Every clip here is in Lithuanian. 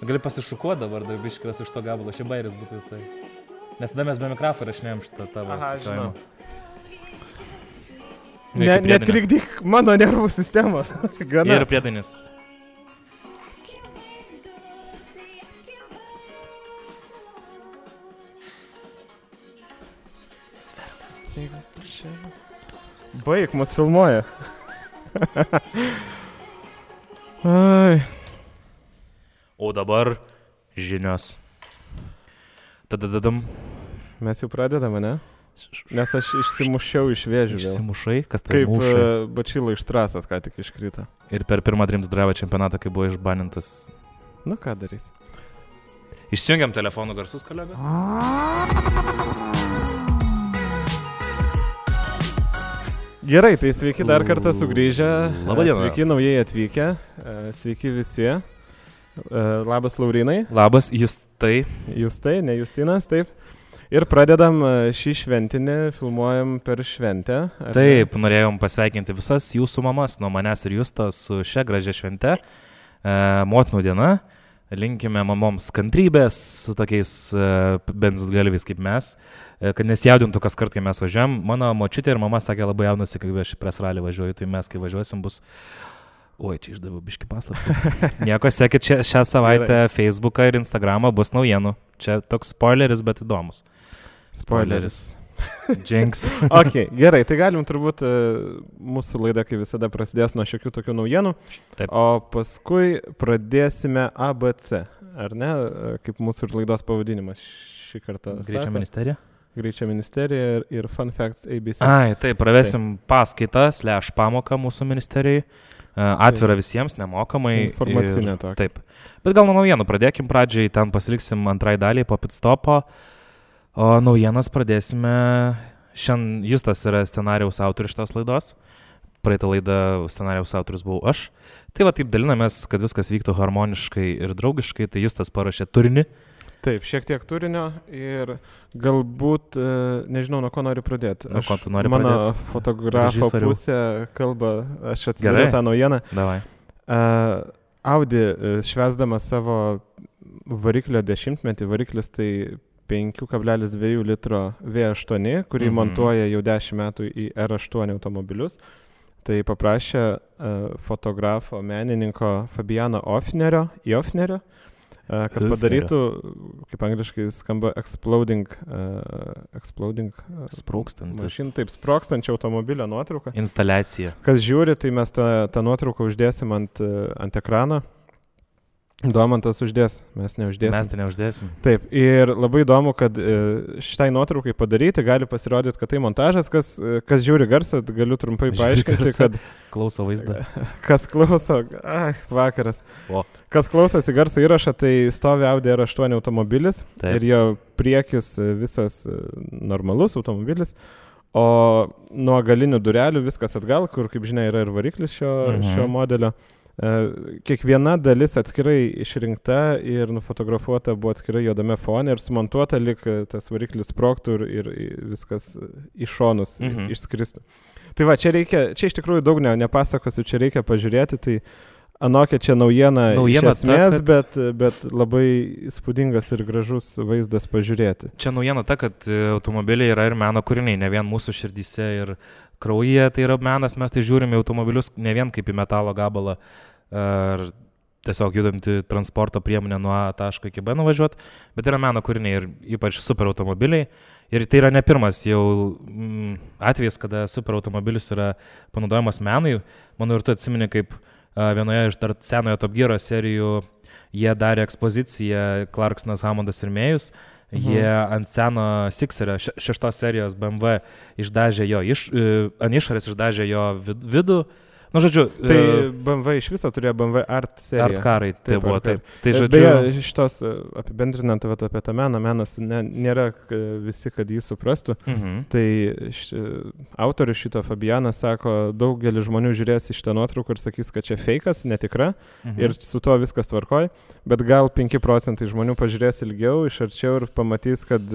Gali pasišukuoti dabar, dar biškilas iš to gabalo, šia bairis būtų visai. Nes tada mes be mikrofą rašinėjom šitą tavo. Aha, žinau. Netrikdyk mano nervų sistemos. Ir priedainis. Baik, mus filmuoja. Ai. O dabar žinios. Tadadadam. Mes jau pradedame, ne? Nes aš išsimušiau iš vėžių. Išsimušai? Kas tai kaip mušai? Kaip Bačyla iš trasos ką tik iškrito. Ir per pirmą Dreams Drive čempionatą, kai buvo išbanintas. Nu ką darys? Išsijungiam telefonų garsus, kolegos. Gerai, tai sveiki dar kartą sugrįžę. Labadiena. Sveiki naujai atvykę. Sveiki visi. Labas Laurinai. Labas, Justai. Justai, ne Justinas, taip. Ir pradedam šį šventinį, filmuojam per šventę. Taip, norėjom pasveikinti visas jūsų mamas nuo manęs ir Justo su šia gražia švente. Motinų diena. Linkime mamoms kantrybės su tokiais benzgalviais kaip mes, kad nesijaudintų kas kart, kai mes važiuojam. Mano močiutė ir mama sakė labai jaunasi, kai aš į presralį važiuoju, tai mes kai važiuosim bus... Oi, čia išdaviau biškį paslaptį. Nieko, sekit šią savaitę Facebooką ir Instagramą bus naujienų. Čia toks spoileris, bet įdomus. Spoileris. Jinx. Ok, gerai, tai galim turbūt mūsų laida, kaip visada, prasidės nuo šiokių tokių naujienų. Taip. O paskui pradėsime ABC, ar ne? Kaip mūsų ir laidos pavadinimas šį kartą. Greičio ministerija? Greičio ministerija ir Fun Facts ABC. Ai, taip, pravesim paskaitą / pamoką mūsų ministerijai. Atvira visiems, nemokamai. Informacinė tokia. Taip. Bet gal nuo naujienų pradėkim pradžiai, ten pasiliksim antrai daliai po pitstopo. O naujienas pradėsime. Šiandien Justas yra scenarijaus autorius šitos laidos. Praeitą laidą scenarijaus autorius buvau aš. Tai va taip dalinamės, kad viskas vyktų harmoniškai ir draugiškai. Tai Justas parašė turinį. Taip, šiek tiek turinio ir galbūt, nežinau, nuo ko noriu pradėti. Nuo ko tu nori mano pradėti? Mano fotografo pusė kalba, aš atsidariau tą naujieną. Davai. Audi švęsdama savo variklio 10-metį, variklis tai 5,2 litro V8, kurį montuoja jau 10 metų į R8 automobilius. Tai paprašė fotografo, menininko Fabiano Ofnerio, kad padarytų, kaip angliškai skamba, exploding mašin, taip, sprogstančio automobilio nuotrauką. Instaliacija. Kas žiūri, tai mes tą nuotrauką uždėsim ant ekrano. Domantas uždės, mes neuždėsim. Mes tai neuždėsim. Taip, ir labai įdomu, kad šitai nuotraukai padaryti gali pasirodyti, kad tai montažas, kas žiūri garsą, galiu trumpai paaiškinti, kad... Klauso vaizdą. Kas klauso, vakaras. O. Kas klausosi garso įrašą, tai stovi Audi R8 automobilis. Taip. Ir jo priekis visas normalus automobilis. O nuo galinių durelių viskas atgal, kur, kaip žinia, yra ir variklis šio modelio. Kiekviena dalis atskirai išrinkta ir nufotografuota buvo atskirai juodame fone ir sumontuota, lyg tas variklis sprogtų ir viskas į šonus išskristų. Tai va, čia iš tikrųjų daug nepasakosiu, čia reikia pažiūrėti, tai anokia čia naujiena iš esmės, bet labai įspūdingas ir gražus vaizdas pažiūrėti. Čia naujiena ta, kad automobiliai yra ir meno kūriniai, ne vien mūsų širdyse ir kraujyje, tai yra menas, mes tai žiūrime automobilius ne vien kaip į metalo gabalą ar tiesiog judantį transporto priemonę nuo A taško iki B nuvažiuoti, bet yra meno kūriniai ir ypač super automobiliai. Ir tai yra ne pirmas jau atvejis, kada super automobilis yra panaudojamas menui. Manau, ir tu atsimeni, kaip vienoje iš dar senojo Top Gear serijų jie darė ekspoziciją Clarksonas, Hammondas ir Mėjus. Jie ant seno Sixerio 6 serijos BMW išdažė jo, ant išorės išdažė jo vidų. Nu, žodžiu... Tai BMW iš viso turėjo BMW Art seriją. Art karai, tai buvo, taip. Tai, žodžiu... Beje, šitos apibendrinant apie tą menas nėra visi, kad jį suprastų. Tai autorius šito Fabianas sako, daugelis žmonių žiūrės į šitą nuotrauką ir sakys, kad čia fejkas, netikra, ir su tuo viskas tvarkoj, bet gal 5% žmonių pažiūrės ilgiau, iš arčiau ir pamatys, kad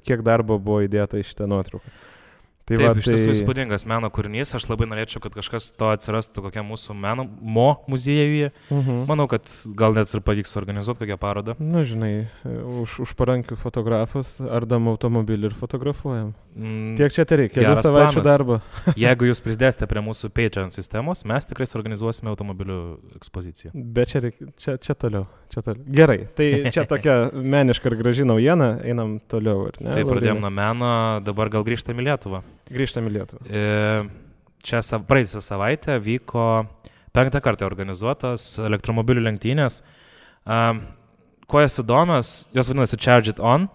kiek darbo buvo įdėta į šitą nuotrauką. Tai taip, iš tiesų įspūdingas meno kūrinys, aš labai norėčiau, kad kažkas to atsirastų kokiam mūsų meno muziejuje. Manau, kad gal net ir pavyks organizuoti kokią parodą. Na, žinai, už parankių fotografus ardam automobilį ir fotografuojam. Tiek čia tai reikia, kelių savaičių darbo. Jeigu jūs prisidėsite prie mūsų Patreon sistemos, mes tikrai suorganizuosime automobilių ekspoziciją. Bet čia toliau. Gerai, tai čia tokia meniška ir graži naujiena, einam toliau. Tai pradėjom nuo meno, dabar gal grįžtam į Lietuvą. Grįžtam į Lietuvą. Čia praėjusią savaitę vyko 5. kartą organizuotos elektromobilių lenktynės. Kuo jos įdomios, jos vadinasi Charge It On,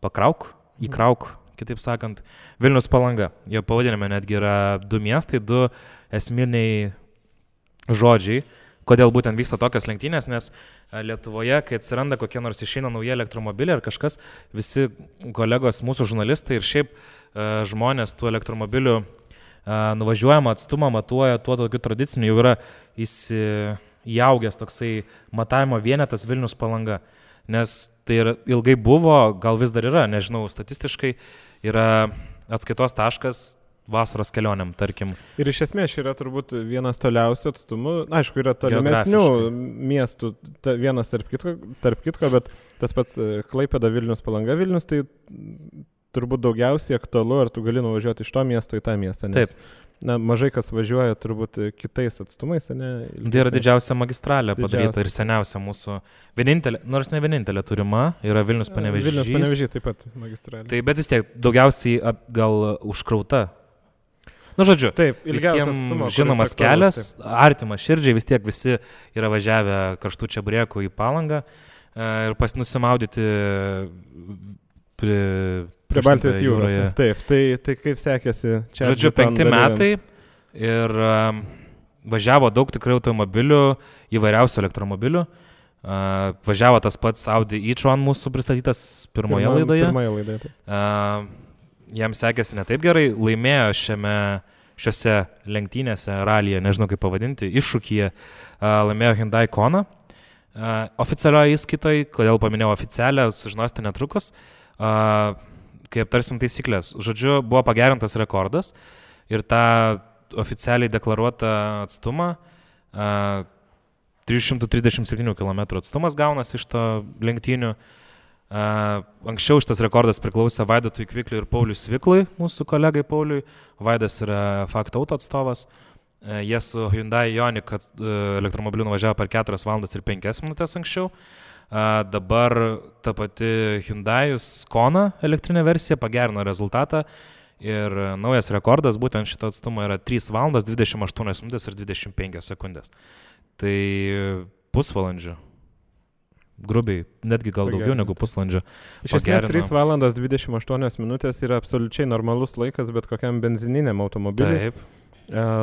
pakrauk, įkrauk, kitaip sakant, Vilnius Palanga. Jo pavadinime netgi yra 2 miestai, 2 esminiai žodžiai, kodėl būtent vyksta tokios lenktynės, nes Lietuvoje, kai atsiranda kokie nors išeina nauji elektromobiliai ar kažkas, visi kolegos, mūsų žurnalistai ir šiaip žmonės tų elektromobilių nuvažiuojamą atstumą matuoja tuo tokiu tradiciniu, jau yra įaugęs toksai matavimo vienetas Vilnius Palanga, nes tai ilgai buvo, gal vis dar yra, nežinau, statistiškai yra atskaitos taškas vasaros kelionėm, tarkim. Ir iš esmės yra turbūt vienas toliausių atstumų, aišku, yra tolimesnių miestų, vienas tarp kitko, bet tas pats Klaipėda, Vilnius Palanga, Vilnius, tai turbūt daugiausiai aktualu, ar tu gali nuvažiuoti iš to miesto į tą miestą, nes mažai kas važiuoja turbūt kitais atstumais, ne? Tai yra didžiausia magistralė padaryta ir seniausia mūsų, vienintelė, nors ne vienintelė turima, yra Vilnius Panevėžys. Vilnius Panevėžys taip pat magistralė. Tai bet vis tiek daugiausiai gal užkrauta. Nu, žodžiu, taip, visiems žinomas kelias, artimas širdžiai, vis tiek visi yra važiavę karštų čeburekų į Palangą ir nusimaudyti prie Baltijos jūros. Taip, tai kaip sekėsi čia? Žodžiu, 5 metai ir važiavo daug tikrai automobilių, įvairiausių elektromobilių. Važiavo tas pats Audi e-tron mūsų pristatytas pirmoje laidoje. Jam sekėsi ne taip gerai, laimėjo šiose lenktynėse, ralyje, nežinau kaip pavadinti, iššūkyje, laimėjo Hyundai Kona. Oficialioje įskaitoje, kodėl paminėjau oficialią, sužinosite netrukus, kai aptarsim taisyklės. Žodžiu, buvo pagerintas rekordas ir tą oficialiai deklaruotą atstumą, 337 km atstumas gaunas iš to lenktynių. Anksčiau šitas rekordas priklausė Vaidotui Kvikliui ir Pauliui Sviklui, mūsų kolegai Pauliui. Vaidas yra Fakto Auto atstovas. Jie su Hyundai Ioniq elektromobiliu nuvažiavo per 4 valandas ir 5 minutės anksčiau. Dabar ta pati Hyundai Kona elektrinė versija pagerino rezultatą ir naujas rekordas būtent šito atstumo yra 3 valandas 28 minutės ir 25 sekundės. Tai pusvalandžių. Grubiai, netgi gal daugiau negu pusvalandžio. Iš esmės 3 valandas 28 minutės yra absoliučiai normalus laikas bet kokiam benzininiam automobiliui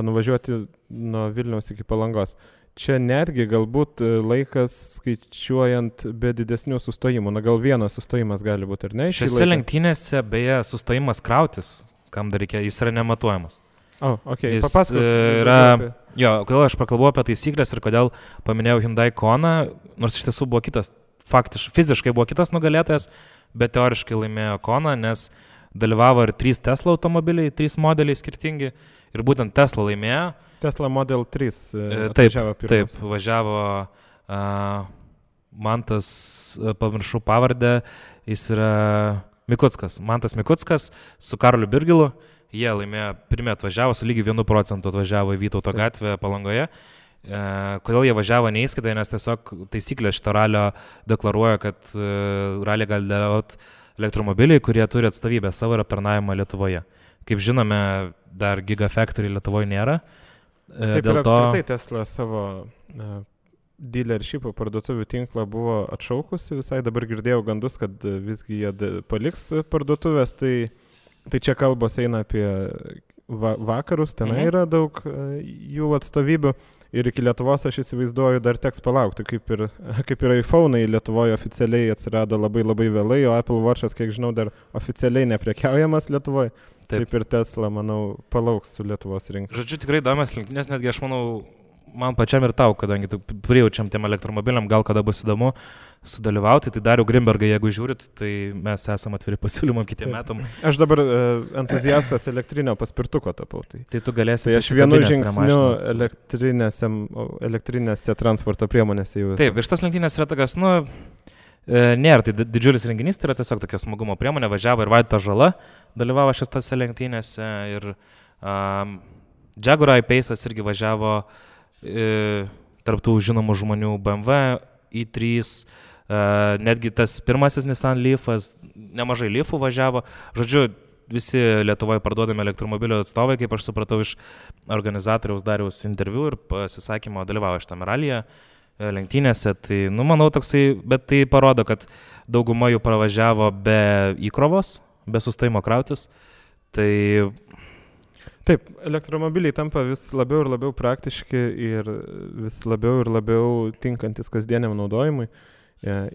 nuvažiuoti nuo Vilniaus iki Palangos. Čia netgi galbūt laikas skaičiuojant be didesnių sustojimų. Na gal vienas sustojimas gali būti, ar ne? Šiose lenktynėse beje sustojimas krautis, kam dar reikia, jis yra nematuojamas. Okay. Kodėl aš pakalbu apie taisyklės ir kodėl paminėjau Hyundai Kona, nors iš tiesų buvo kitas, fiziškai buvo kitas nugalėtojas, bet teoriškai laimėjo Kona, nes dalyvavo ir 3 Tesla automobiliai, 3 modeliai skirtingi ir būtent Tesla laimėjo. Tesla Model 3 atvažiavo pirmas. Taip, važiavo Mantas, pamiršau pavardę, jis yra Mantas Mikuckas su Karoliu Birgilu. Jie laimėjo, pirmie atvažiavo, su lygiai 1% atvažiavo į Vytauto gatvę Palangoje. Kodėl jie važiavo neįskaitoje, nes tiesiog taisyklės šito ralio deklaruoja, kad ralį gali dalyvauti elektromobiliai, kurie turi atstovybę savo ir aptarnavimą Lietuvoje. Kaip žinome, dar Gigafactory Lietuvoje nėra. Taip ir apskritai Tesla savo dealership parduotuvių tinklą buvo atšaukusi. Visai dabar girdėjau gandus, kad visgi jie paliks parduotuvės, tai čia kalbos eina apie vakarus, tenai yra daug jų atstovybių ir iki Lietuvos aš įsivaizduoju dar teks palaukti, kaip ir iPhone'ai Lietuvoje oficialiai atsirado labai labai vėlai, o Apple Watch'as, kiek žinau, dar oficialiai neprekiaujamas Lietuvoje. Taip ir Tesla, manau, palauks su Lietuvos rinka. Žodžiu, tikrai įdomias lenktynės, netgi aš manau, man pačiam ir tau, kadangi prijaučiam tiem elektromobiliam, gal kada bus įdomu sudalyvauti, tai Darių Grimbergą, jeigu žiūrit, tai mes esame atviri pasiūlymam kitiem metam. Aš dabar entuziastas elektrinio paspirtuko tapau. Tai tu galėsi. Tai aš vienu žingsniu elektrinėse transporto priemonėse jau esu. Taip, ir šitas lenktynės yra tokias, nėra tai didžiulis renginys, tai yra tiesiog tokia smagumo priemonė, važiavo ir Vaidotas Žala, dalyvavo šitose lenktynėse ir Jaguar I-Pace'as irgi važiavo tarptų žinomų žmonių BMW, i3, netgi tas pirmasis Nissan Leafas, nemažai Leafų važiavo. Žodžiu, visi Lietuvoje parduodami elektromobilio atstovai, kaip aš supratau iš organizatoriaus Dariaus interviu ir pasisakymo, dalyvavo šitame ralyje, lenktynėse. Tai, manau, toksai, bet tai parodo, kad dauguma jų pravažiavo be įkrovos, be sustojimo krautis. Tai taip, elektromobiliai tampa vis labiau ir labiau praktiški ir vis labiau ir labiau tinkantis kasdieniam naudojimui.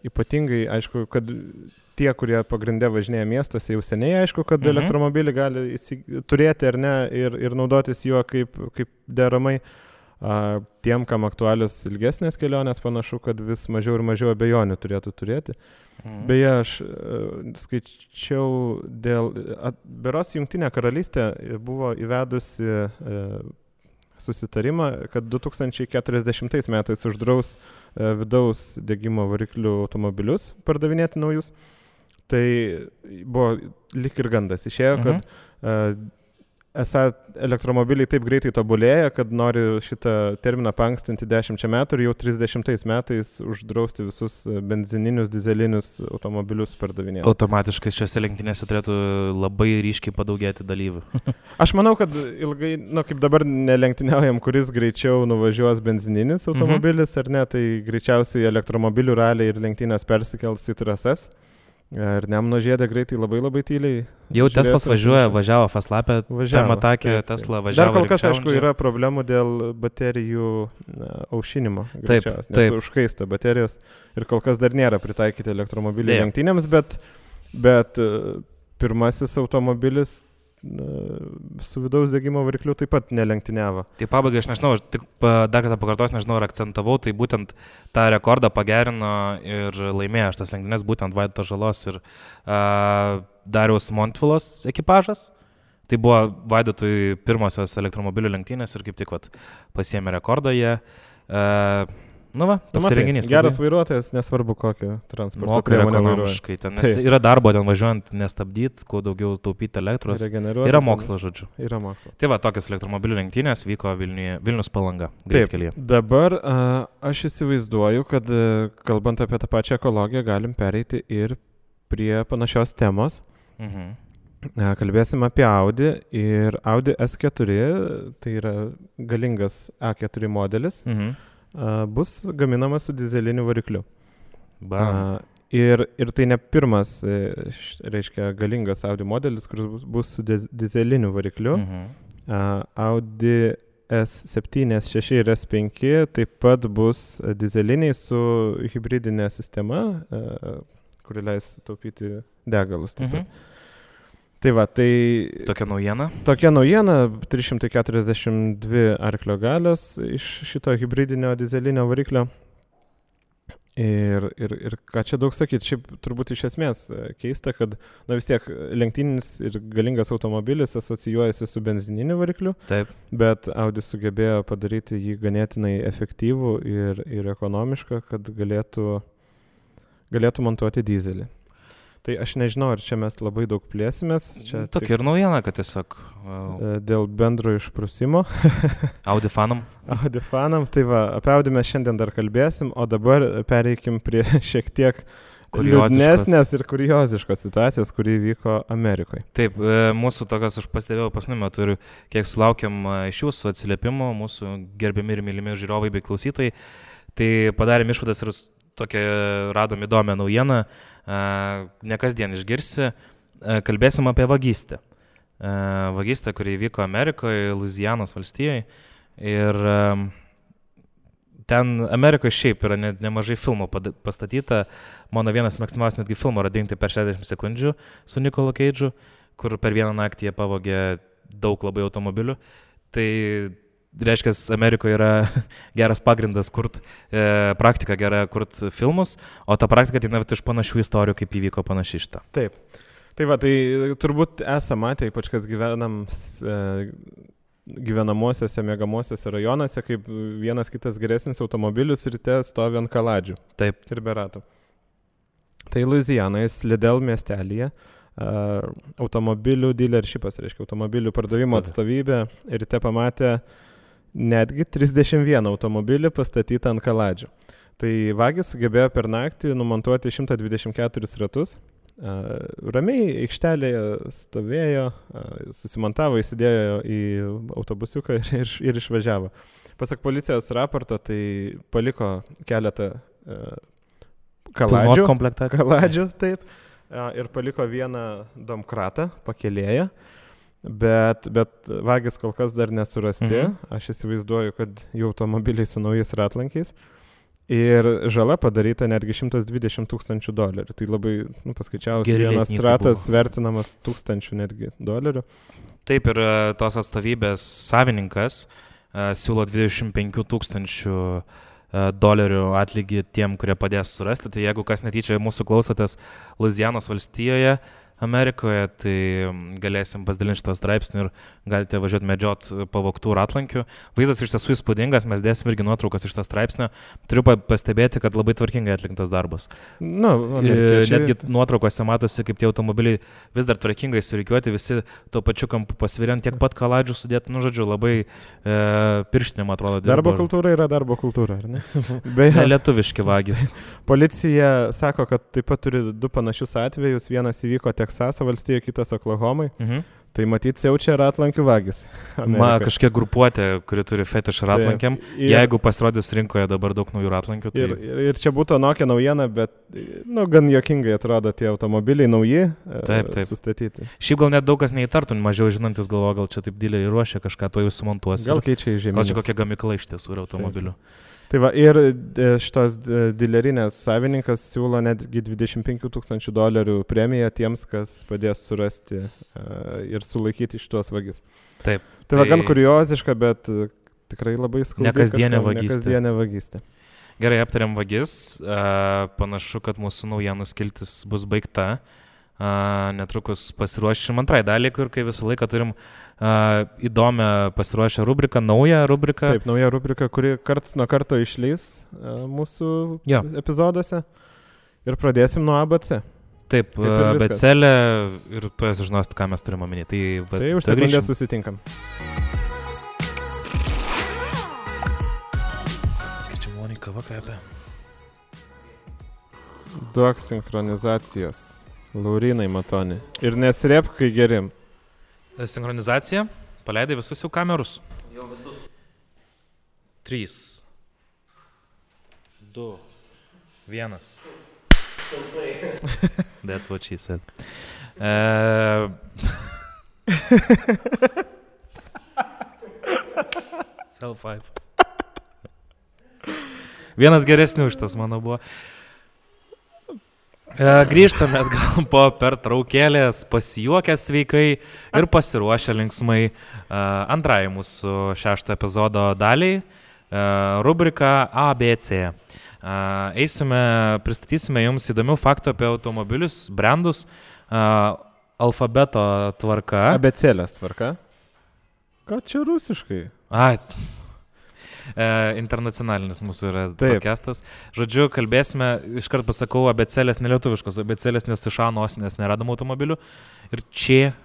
Ypatingai, aišku, kad tie, kurie pagrindė važinėja miestuose, jau seniai aišku, kad elektromobilį gali turėti ar ne ir naudotis juo kaip deramai. Tiem, kam aktualios ilgesnės kelionės, panašu, kad vis mažiau ir mažiau abejonių turėtų turėti. Beje, aš skaičiau beros Jungtinė karalystė buvo įvedusi susitarimą, kad 2040 metais uždraus vidaus degimo variklių automobilius pardavinėti naujus. Tai buvo lyg ir gandas. Išėjo, kad esą elektromobiliai taip greitai tobulėja, kad nori šitą terminą paankstinti 10 metų ir jau 30 metais uždrausti visus benzininius, dizelinius automobilius pardavinėti. Automatiškai šiose lenktynėse turėtų labai ryškiai padaugėti dalyvių. Aš manau, kad ilgai, kaip dabar nelenktyniaujam, kuris greičiau nuvažiuos benzininis automobilis ar ne, tai greičiausiai elektromobilių raliai ir lenktynės persikels į trasas. Ir Nemuno žiede greitai labai tyliai. Jau Teslas važiavo Faslapę, tam atakė Tesla važiavo. Dar kol kas, aišku, yra problemų dėl baterijų aušinimo. Taip. Nes užkaista baterijos ir kol kas dar nėra pritaikyti elektromobilių lenktynėms, bet pirmasis automobilis su vidaus degimo varikliu taip pat nelenktyniavo. Tai pabaigai, aš nežinau, tik dar kartą pakartosiu, nežinau, ar akcentavau, tai būtent tą rekordą pagerino ir laimėjo šitas lenktynės, būtent Vaidotas Žalos ir Dariaus Montvilos ekipažas. Tai buvo Vaidotui pirmosios elektromobilių lenktynės ir kaip tik pasiėmė rekordą jie. Toks renginys. Geras vairuotojas, nesvarbu kokią transporto priemonę vairuoja. Nes yra darbo ten važiuojant nestabdyti, kuo daugiau taupyti elektros. Yra mokslo, žodžiu. Yra mokslo. Tai tokios elektromobilių lenktynės vyko Vilnius Palanga. Greitkelyje. Dabar aš įsivaizduoju, kad kalbant apie tą pačią ekologiją, galim pereiti ir prie panašios temos. Kalbėsim apie Audi ir Audi S4, tai yra galingas A4 modelis. Bus gaminamas su dizeliniu varikliu. Ir tai ne pirmas, reiškia, galingas Audi modelis, kuris bus su dizeliniu varikliu. Audi S7, S6 ir S5 taip pat bus dizeliniai su hibridinė sistema, kuri leis taupyti degalus. Tai Tokia naujiena? Tokia naujiena, 342 arklio galios iš šito hibridinio dizelinio variklio. Ir ką čia daug sakyti, šiaip turbūt iš esmės keista, kad vis tiek lenktyninis ir galingas automobilis asocijuojasi su benzininiu varikliu. Taip. Bet Audi sugebėjo padaryti jį ganėtinai efektyvų ir ekonomišką, kad galėtų montuoti dizelį. Tai aš nežinau, ar čia mes labai daug plėsimės. Tokia ir naujiena, kad tiesiog... Dėl bendro išprusimo. Audi fanam. Tai apie Audi mes šiandien dar kalbėsim, o dabar pereikim prie šiek tiek liūdnesnės ir kurioziškos situacijos, kuri vyko Amerikoje. Taip, mūsų tokios, aš pastebėjau pasniu metu ir kiek sulaukiam iš jūsų atsiliepimų, mūsų gerbiami ir mylimi žiūrovai bei klausytojai, tai padarėm išvadas ir tokią radom įdomią naujieną. Ne kasdien išgirsi, kalbėsim apie vagystę. Vagystę, kuri vyko Amerikoje, Luizianos valstijoje. Ir ten Amerikoje šiaip yra nemažai filmų pastatyta. Mano vienas mėgstamiausias netgi filmo yra Dingti per 60 sekundžių su Nikolu Keidžu, kur per vieną naktį jie pavogė daug labai automobilių. Tai reiškia, Amerikoje yra geras pagrindas kurt, praktika gera kurt filmus, o ta praktika ateina iš panašių istorijų, kaip įvyko panašiai šitą. Taip. Tai va, tai turbūt esame matę, ypač kas gyvenamosiuose, miegamosiuose rajonuose, kaip vienas kitas geresnis automobilis ryte stovi ant kaladžių. Taip. Ir be ratų. Tai Luizianoje, Slidell miestelyje, automobilių dealershipas, reiškia automobilių pardavimo atstovybė, ryte pamatė netgi 31 automobilį pastatytą ant kaladžių. Tai vagis sugebėjo per naktį numontuoti 124 ratus. Ramiai aikštelėje stovėjo, susimontavo, įsidėjo į autobusiuką ir išvažiavo. Pasak policijos raporto, tai paliko keletą kaladžių, taip. Ir paliko vieną domkratą pakėlėję, bet vagis kol kas dar nesurasti. Aš įsivaizduoju, kad jų automobiliai su naujais ratlankiais. Ir žala padaryta netgi $120,000. Tai labai, paskaičiavus, vienas ratas vertinamas $1,000 netgi dolerių. Taip, ir tos atstovybės savininkas siūlo $25,000 atlygį tiem, kurie padės surasti. Tai jeigu kas netyčia mūsų klausotės Luizianos valstijoje, Amerikoje, tai galėsim pasidalinti šito straipsnį ir galite važiuoti medžiot pavogtų ratlankių. Vaizdas iš tiesų įspūdingas, mes dėsim irgi nuotraukas iš to straipsnio. Turiu pastebėti, kad labai tvarkingai atliktas darbas. Netgi nuotraukose matosi, kaip tie automobiliai vis dar tvarkingai surikiuoti, visi tuo pačiu kampu pasviriant, tiek pat kaladžių sudėti, žodžiu, labai pirštinėm atrodo. Darbo kultūra yra darbo kultūra, ar ne? Beje, lietuviški vagis. Policija sako, kad taip pat turi 2 panašius atvejus. Vienas įvyko Teksaso valstijoje, kitas Oklahomai. Tai matyt, siaučia ratlankių vagis. Kažkiek grupuotė, kuri turi fetišą ratlankiam. Jeigu pasirodys rinkoje dabar daug naujų ratlankių. Tai... Ir čia būtų anokia naujiena, bet gan juokingai atrodo tie automobiliai nauji, taip. Sustatyti. Šiaip gal net daug kas neįtartų, mažiau žinantis galvo, gal čia taip dileriai ruošia kažką, to jau sumontuos. Gal keičia į žemynus. Gal čia kokia gamykla iš tiesų yra automobilių. Taip. Tai va, ir šitos dilerinės savininkas siūlo netgi $25,000 premiją tiems, kas padės surasti ir sulaikyti šitos vagis. Taip. Tai va, gan kurioziška, bet tikrai labai skaudi. Nekasdienė vagystė. Gerai, aptariam vagis. Panašu, kad mūsų naujienų skiltis bus baigta. Netrukus pasiruošim antrai daliai, kur kai visą laiką turim įdomią pasiruošę rubriką, naują rubriką. Taip, nauja rubrika, kuri karts nuo karto išleis mūsų epizoduose. Ir pradėsim nuo ABC. Taip, ABC-lė ir tu sužinosit, ką mes turim omeny. Tai už sekundę susitinkam. Kai čia maloniai kava kvepia. Duok sinchronizacijos. Laurinai Matoni. Ir nesirėpk, kai gerim. Sinchronizacija. Paleidai visus jau kamerus? Jau visus. 3, 2, 1. That's what she said. Self-5. Vienas geresnių iš tas mano buvo. Grįžtame atgal po pertraukėlės, pasijuokę sveikai ir pasiruošę linksmai antrai mūsų 6 epizodo daliai, rubrika ABC. Pristatysime jums įdomių faktų apie automobilius, brandus, alfabeto tvarka. Abecėlės tvarka? Ką čia rusiškai? Internacionalinis mūsų yra podcastas. Žodžiu, kalbėsime, iškart pasakau, abecėlės nelietuviškos, abecėlės nes iš A nosinės neradom automobilių ir čia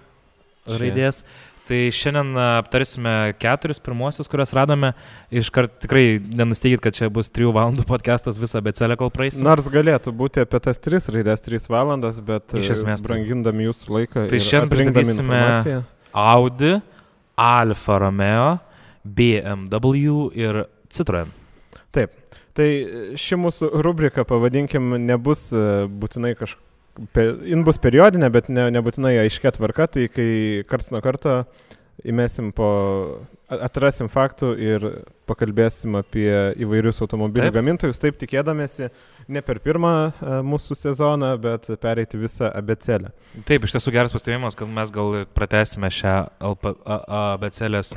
raidės. Tai šiandien aptarsime 4 pirmuosius, kuriuos radome. Iškart tikrai nenusteikit, kad čia bus 3 valandų podcastas visą abecėlę, kol praeisim. Nors galėtų būti apie tas 3 raidės 3 valandas, bet iš esmės brangindami jūsų laiką tai ir atrinkdami informaciją. Audi, Alfa Romeo, BMW ir Citroen. Taip, tai ši mūsų rubrika, pavadinkim, nebus būtinai jin bus periodinė, bet nebūtinai aiškia tvarka, tai kai karts nuo karto atrasim faktų ir pakalbėsim apie įvairius automobilių gamintojus, taip tikėdamėsi ne per pirmą mūsų sezoną, bet pereiti visą abėcėlę. Taip, iš tiesų geras pastebėjimas, kad mes gal pratęsime šią abėcėlės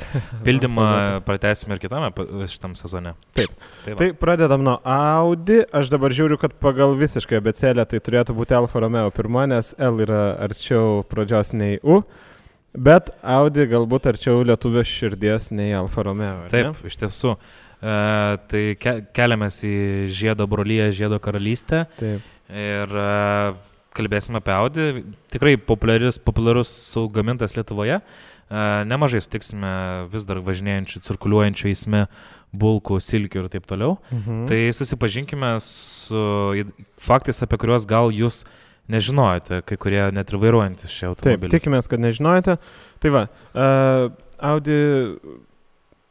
pildymą, pratęsime ir kitame šitam sezone. Taip. Tai pradedam nuo Audi. Aš dabar žiūriu, kad pagal visiškai abėcėlę tai turėtų būti Alfa Romeo pirma, nes L yra arčiau pradžios nei U. Bet Audi galbūt arčiau lietuvio širdies nei Alfa Romeo. Taip, iš tiesų. Tai keliamės į žiedo brolyje, žiedo karalystę. Taip. Ir kalbėsime apie Audi. Tikrai populiarus gamintojas Lietuvoje. Nemažai sutiksime vis dar važinėjančių, cirkuliuojančių eisme bulkų, silkių ir taip toliau. Tai susipažinkime su faktais, apie kuriuos gal jūs nežinojate, kai kurie net ir vairuojantis šį automobilį. Taip, tikimės, kad nežinojate. Tai va, Audi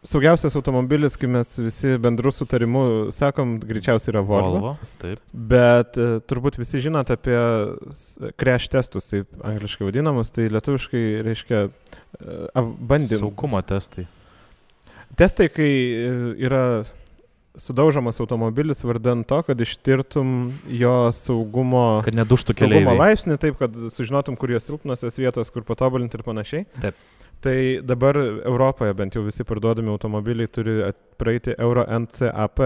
saugiausias automobilis, kai mes visi bendrų sutarimų sakom, greičiausiai yra Volvo. Taip. Bet turbūt visi žinot apie crash testus, taip angliškai vadinamus, tai lietuviškai reiškia bandymų. Saugumo testai. Testai, kai yra sudaužomas automobilis vardan to, kad ištirtum jo saugumo, kad neduštų keleiviai. Saugumo laipsnį, taip, kad sužinotum, kur jo silpnosios vietos, kur patobulinti ir panašiai. Taip. Tai dabar Europoje bent jau visi parduodami automobiliai turi praeiti Euro NCAP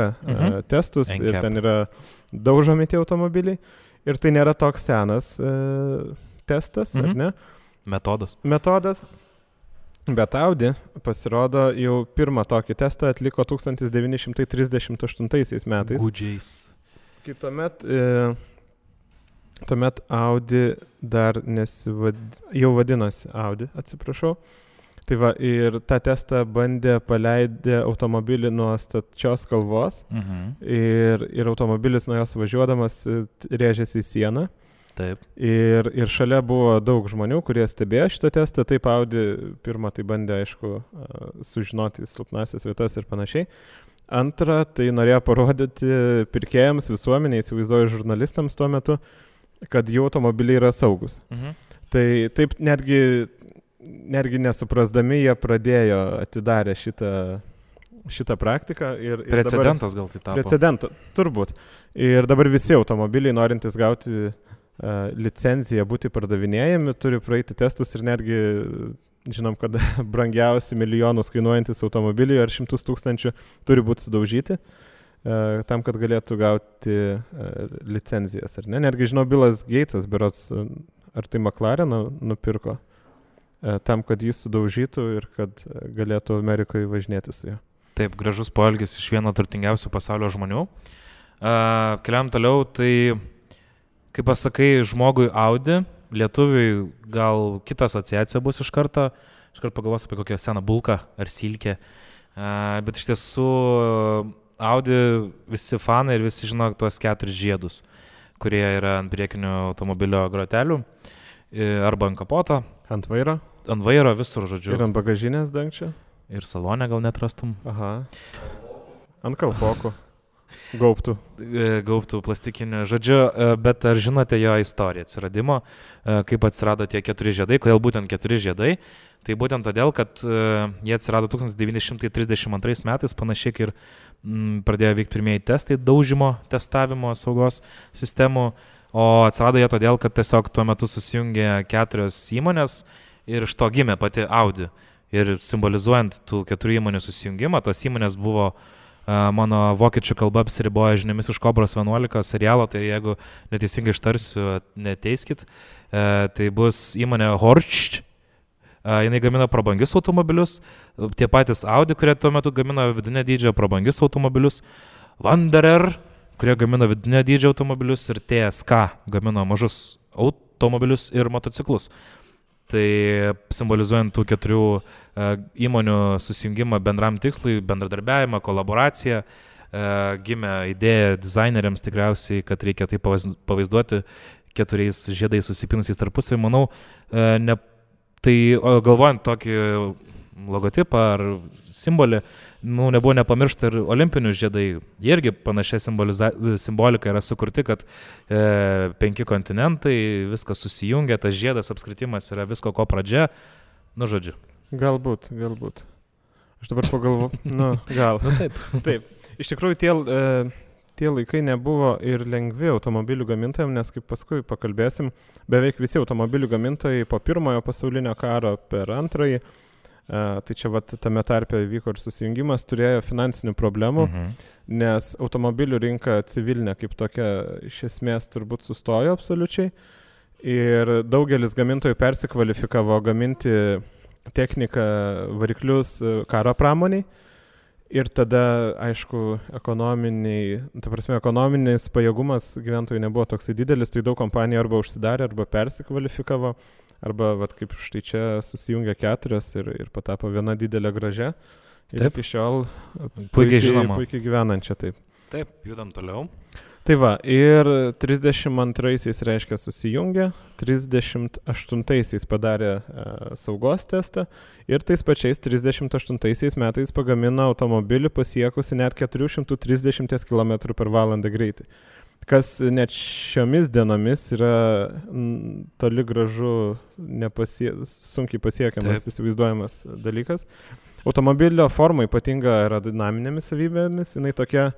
testus ir ten yra daužomi tie automobiliai. Ir tai nėra toks senas testas, ar ne? Metodas. Bet Audi pasirodo jau pirmą tokį testą atliko 1938 metais. Gudžiais. Kai tuomet Audi dar jau vadinosi Audi, atsiprašau. Tai va, ir tą testą paleidę automobilį nuo stačios kalvos ir automobilis nuo jos važiuodamas rėžėsi į sieną. Taip. Ir šalia buvo daug žmonių, kurie stebėjo šitą testą. Taip Audi pirmą tai bandė, aišku, sužinoti silpnasias vietas ir panašiai. Antra, tai norėjo parodyti pirkėjams, visuomeniai, įsivaizduoju žurnalistams tuo metu, kad jų automobiliai yra saugus. Tai taip netgi nesuprasdami jie pradėjo atidarę šitą praktiką. Precedentas gal tai tapo. Precedentą, turbūt. Ir dabar visi automobiliai norintys gauti licenciją būti pardavinėjami, turi praeiti testus ir netgi žinom, kad brangiausi milijonus kainuojantis automobiliai ar 100 000 turi būti sudaužyti tam, kad galėtų gauti licenzijas. Ar ne? Netgi žinau, Billas Gatesas, berods, ar tai McLareną nupirko tam, kad jis sudaužytų ir kad galėtų Amerikoje važinėti su juo. Taip, gražus poelgis iš vieno turtingiausių pasaulio žmonių. Keliam toliau, tai kaip pasakai žmogui Audi, lietuviui gal kita asociacija bus iš karto pagalvos apie kokią seną bulką ar silkę, bet iš tiesų Audi visi fanai ir visi žino tuos 4 žiedus, kurie yra ant priekinio automobilio grotelių, arba ant kapoto. Ant vairo? Ant vairo visur, žodžiu. Ir ant bagažinės dangčio? Ir salone gal netrastum. Aha. Ant kalpokų. Gaubtų plastikinių, žodžiu, bet ar žinote jo istoriją atsiradimo, kaip atsirado tie 4 žiedai, kodėl būtent 4 žiedai? Tai būtent todėl, kad jie atsirado 1932 metais, panašiai ir pradėjo vykti pirmieji testai daužimo testavimo saugos sistemų, o atsirado jie todėl, kad tiesiog tuo metu susijungė 4 įmonės ir iš to gimė pati Audi. Ir simbolizuojant tų 4 įmonių susijungimą, tos įmonės buvo mano vokiečių kalba apsiriboja žiniomis iš Kobros 11 serialo, tai jeigu neteisingai ištarsiu, neteiskit, tai bus įmonė Horch, jinai gamina prabangius automobilius, tie patys Audi, kurie tuo metu gamino vidinio dydžio prabangius automobilius, Wanderer, kurie gamino vidinio dydžio automobilius ir TSK gamino mažus automobilius ir motociklus. Tai simbolizuojant tų 4 įmonių susijungimą bendram tikslui, bendradarbiavimą, kolaboraciją, gimė idėja dizaineriams tikriausiai, kad reikia tai pavaizduoti 4 žiedais susipinusiais tarpusavį. Manau, tai galvojant tokį logotipą ar simbolį, nebuvo nepamiršta ir olimpinių žiedai. Jie irgi panašia simbolika yra sukurti, kad 5 kontinentai, viskas susijungia, tas žiedas apskritimas yra visko ko pradžia. Nu, žodžiu, Galbūt. Aš dabar pagalvoju, gal. Taip. Iš tikrųjų, tie laikai nebuvo ir lengvi automobilių gamintojams, nes kaip paskui pakalbėsim, beveik visi automobilių gamintojai po pirmojo pasaulinio karo per antrąjį, tai čia tame tarpe vyko ir susijungimas, turėjo finansinių problemų, nes automobilių rinka civilinė kaip tokia iš esmės turbūt sustojo absoliučiai ir daugelis gamintojų persikvalifikavo gaminti techniką, variklius karo pramoniai. Ir tada, aišku, ekonominis pajėgumas gyventojų nebuvo toksai didelis, tai daug kompanijų arba užsidarė, arba persikvalifikavo, arba kaip štai čia susijungia 4 ir patapo viena didelė gražia. Ir iki šiol puikiai gyvenančia, taip. Taip, judam toliau. Tai va, ir 32-aisiais reiškia susijungė, 38-aisiais padarė saugos testą ir tais pačiais 38-aisiais metais pagamino automobilį pasiekusi net 430 km/h greitį. Kas net šiomis dienomis yra toli gražu sunkiai pasiekiamas, įsivaizduojamas dalykas. Automobilio forma ypatinga aerodinaminėmis savybėmis, jinai tokia,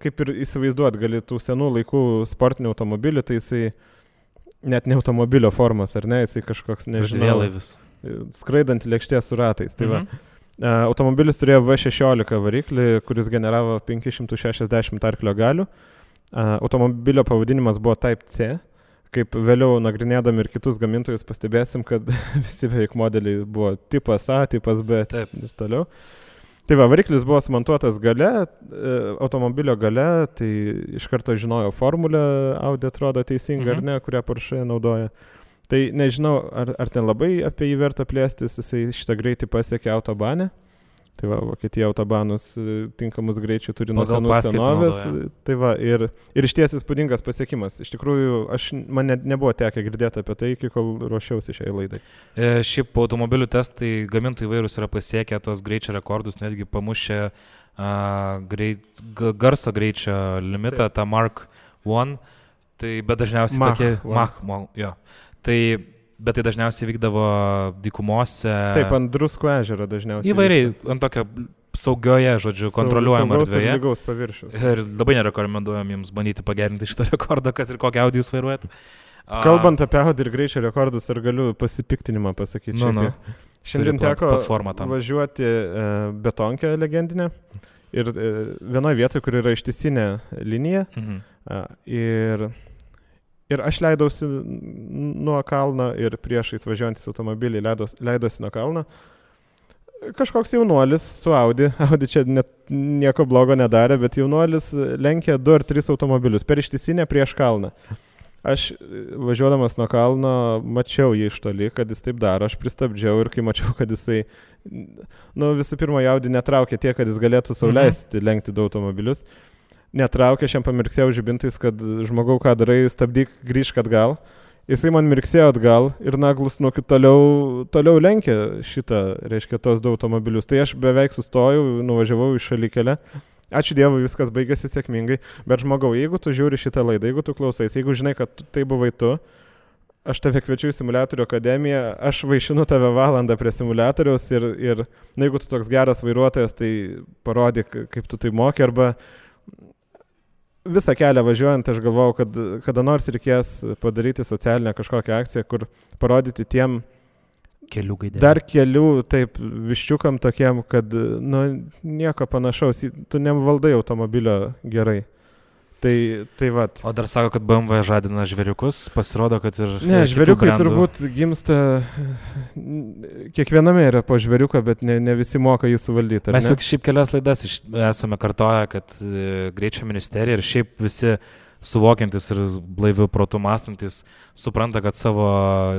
kaip ir įsivaizduot, gali tų senų laikų sportinį automobilį, tai jisai net ne automobilio formos, ar ne, jisai kažkoks, nežinau, skraidant lėkštė su ratais. Tai automobilis turėjo V16 variklį, kuris generavo 560 arklio galių. Automobilio pavadinimas buvo Type C. Kaip vėliau nagrinėdami ir kitus gamintojus pastebėsim, kad visi beveik modeliai buvo tipas A, tipas B ir toliau. Tai variklis buvo sumontuotas gale, automobilio gale, tai iš karto žinojo formulę, Audi atrodo teisinga ar ne, kurią Porsche naudoja. Tai nežinau, ar ten labai apie jį verta plėstis, jisai šitą greitį pasiekė autobane. Tai Vokietija autobanus tinkamus greičių turi nuo senų senovės. Tai ir išties įspūdingas pasiekimas. Iš tikrųjų, man nebuvo tekę girdėti apie tai, iki kol ruošiausi šiai laidai. Šiaip automobilių testai gamintojai įvairūs yra pasiekę tos greičio rekordus, netgi pamušę garso greičio limitą, tą Mark 1. Tai bet dažniausiai Bet tai dažniausiai vykdavo dykumose. Taip, ant Druskų ežero dažniausiai. Įvairiai, ant tokio saugioje, žodžiu, kontroliuojamo erdvėje. Saugaus paviršiaus. Ir labai nerekomenduojam jums bandyti pagerinti šitą rekordą, kad ir kokį Audi jūs vairuojat. Kalbant apie Audi ir greičio rekordus, ar galiu pasipiktinimą pasakyti Šiandien teko važiuoti betonkę legendinę ir vienoje vietoje, kur yra ištisinė linija. Ir aš leidausi nuo kalno ir priešais važiuojantis automobilį leidosi nuo kalno. Kažkoks jaunuolis su Audi čia net nieko blogo nedarė, bet jaunuolis lenkė 2 ar 3 automobilius per ištisinę prieš kalną. Aš važiuodamas nuo kalno mačiau jį iš toli, kad jis taip daro, aš pristabdžiau ir kai mačiau, kad jisai, visų pirma, Audi netraukė tiek, kad jis galėtų sau leisti lenkti 2 automobilius. Netraukė, aš jam pamirksėjau žibintais, kad žmogau, ką darai, stabdyk, grįžk atgal. Jisai man mirksėjo atgal ir naglus toliau lenkė reiškia, tos 2 automobilius. Tai aš beveik sustojau, nuvažiavau į šalikelę. Ačiū Dievui, viskas baigėsi sėkmingai. Bet žmogau, jeigu tu žiūri šitą laidą, jeigu tu klausais, jeigu žinai, kad tai buvai tu, aš tave kviečiu į simuliatorių akademiją, aš vaišinu tave valandą prie simuliatoriaus ir jeigu tu toks geras vairuotojas, tai parodyk, kaip tu tai moki, arba visą kelią važiuojant, aš galvojau, kad kada nors reikės padaryti socialinę kažkokią akciją, kur parodyti tiem dar kelių, taip, viščiukam tokiem, kad, nieko panašaus, tu nevaldai automobilio gerai. Tai vat. O dar sako, kad BMW žadina žvėriukus, pasirodo, kad ir... Ne, žvėriukai turbūt gimsta, kiekviename yra po žvėriuką, bet ne visi moka jį suvaldyti. Mes jau šiaip kelias laidas esame kartoję, kad greičio ministerija ir šiaip visi suvokiantis ir blaivių protų mąstantis supranta, kad savo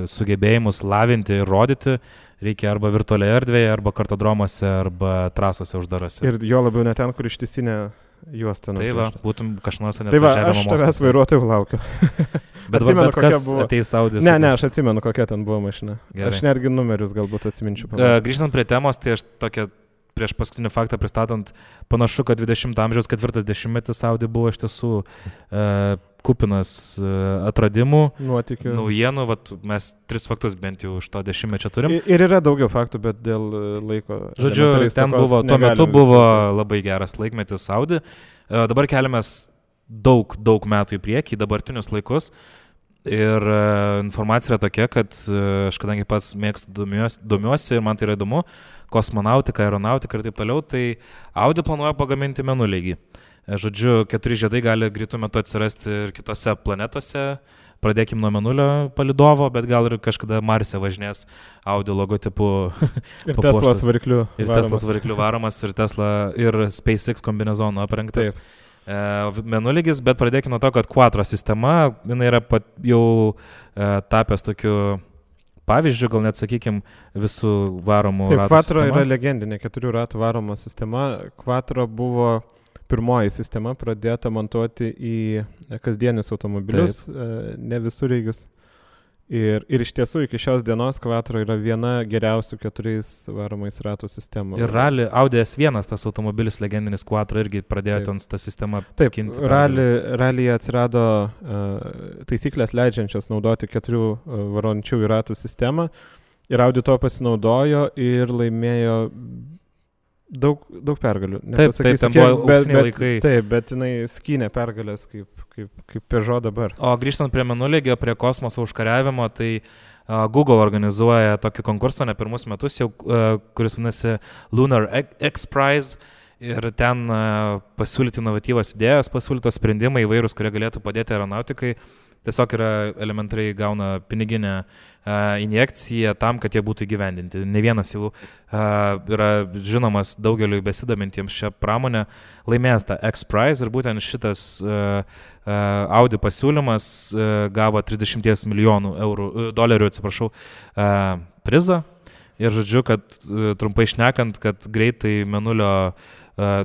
sugebėjimus lavinti ir rodyti reikia arba virtualioje erdvėje, arba kartodromuose, arba trasose uždarose. Ir jo labiau ne ten, kur ištisinė juosta. Tai va, būtum kažnors net važiavimo mokslus. Tai va, aš tavęs vairuotojų laukiu. Bet kas ateis Audi? Ne, aš atsimenu, kokia ten buvo mašina. Gerai. Aš netgi numerius galbūt atsiminčiau. Grįžtant prie temos, tai aš tokia prieš paskutinį faktą pristatant, panašu, kad 20 amžiaus 40-metis Audi buvo iš tiesų kupinas atradimų, nuotykių, naujienų, vat, mes 3 faktus bent jau iš to 10-mečio turim. Ir yra daugiau faktų, bet dėl laiko. Žodžiu, ten buvo, tuo metu buvo labai geras laikmetis Audi. Dabar keliamės daug metų į priekį, dabartinius laikus. Ir informacija yra tokia, kad aš kadangi pats mėgstu domiuosi ir man tai yra įdomu, kosmonautika, aeronautika ir taip toliau, tai Audi planuoja pagaminti mėnulį. Žodžiu, 4 žiedai gali greitų metu atsirasti ir kitose planetose. Pradėkim nuo mėnulio palidovo, bet gal ir kažkada Marse važinės Audi logotipu. Ir Teslos variklių. Ir Teslos variklių varomas, ir Tesla, ir SpaceX kombinezonu aprengtas. Mėnulygis, bet pradėkime nuo to, kad Quattro sistema, jinai yra jau tapęs tokiu pavyzdžių, gal net, sakykime, visų varomų ratų sistema. Quattro yra legendinė 4 ratų varoma sistema. Quattro buvo pirmoji sistema pradėta montuoti į kasdienius automobilius, ne visureigius. Ir iš tiesų iki šios dienos Quattro yra viena geriausių 4 varomais ratų sistemų. Ir Audi S1, tas automobilis legendinis Quattro, irgi pradėjo ten tą sistemą skinti. Taip, ralyje atsirado taisyklės leidžiančios naudoti 4 varončiųjų ratų sistemą. Ir Audi to pasinaudojo ir laimėjo daug pergalių. Taip, ten buvo auksiniai laikai. Taip, bet jinai skynė pergalės kaip Peugeot dabar. O grįžtant prie mėnulygio, prie kosmoso užkariavimo, tai Google organizuoja tokį konkursą ne pirmus metus jau, kuris vadinasi Lunar X Prize. Ir ten pasiūlyti inovatyvas idėjas, pasiūlytos sprendimai įvairūs, kurie galėtų padėti aeronautikai. Tiesiog yra elementariai gauna piniginę injekciją tam, kad jie būtų įgyvendinti. Ne vienas jau yra žinomas daugeliu besidomintiems šią pramonę laimėjęs tą X-Prize ir būtent šitas Audi pasiūlymas gavo 30 milijonų dolerių prizą. Ir žodžiu, kad trumpai šnekant, kad greitai mėnulio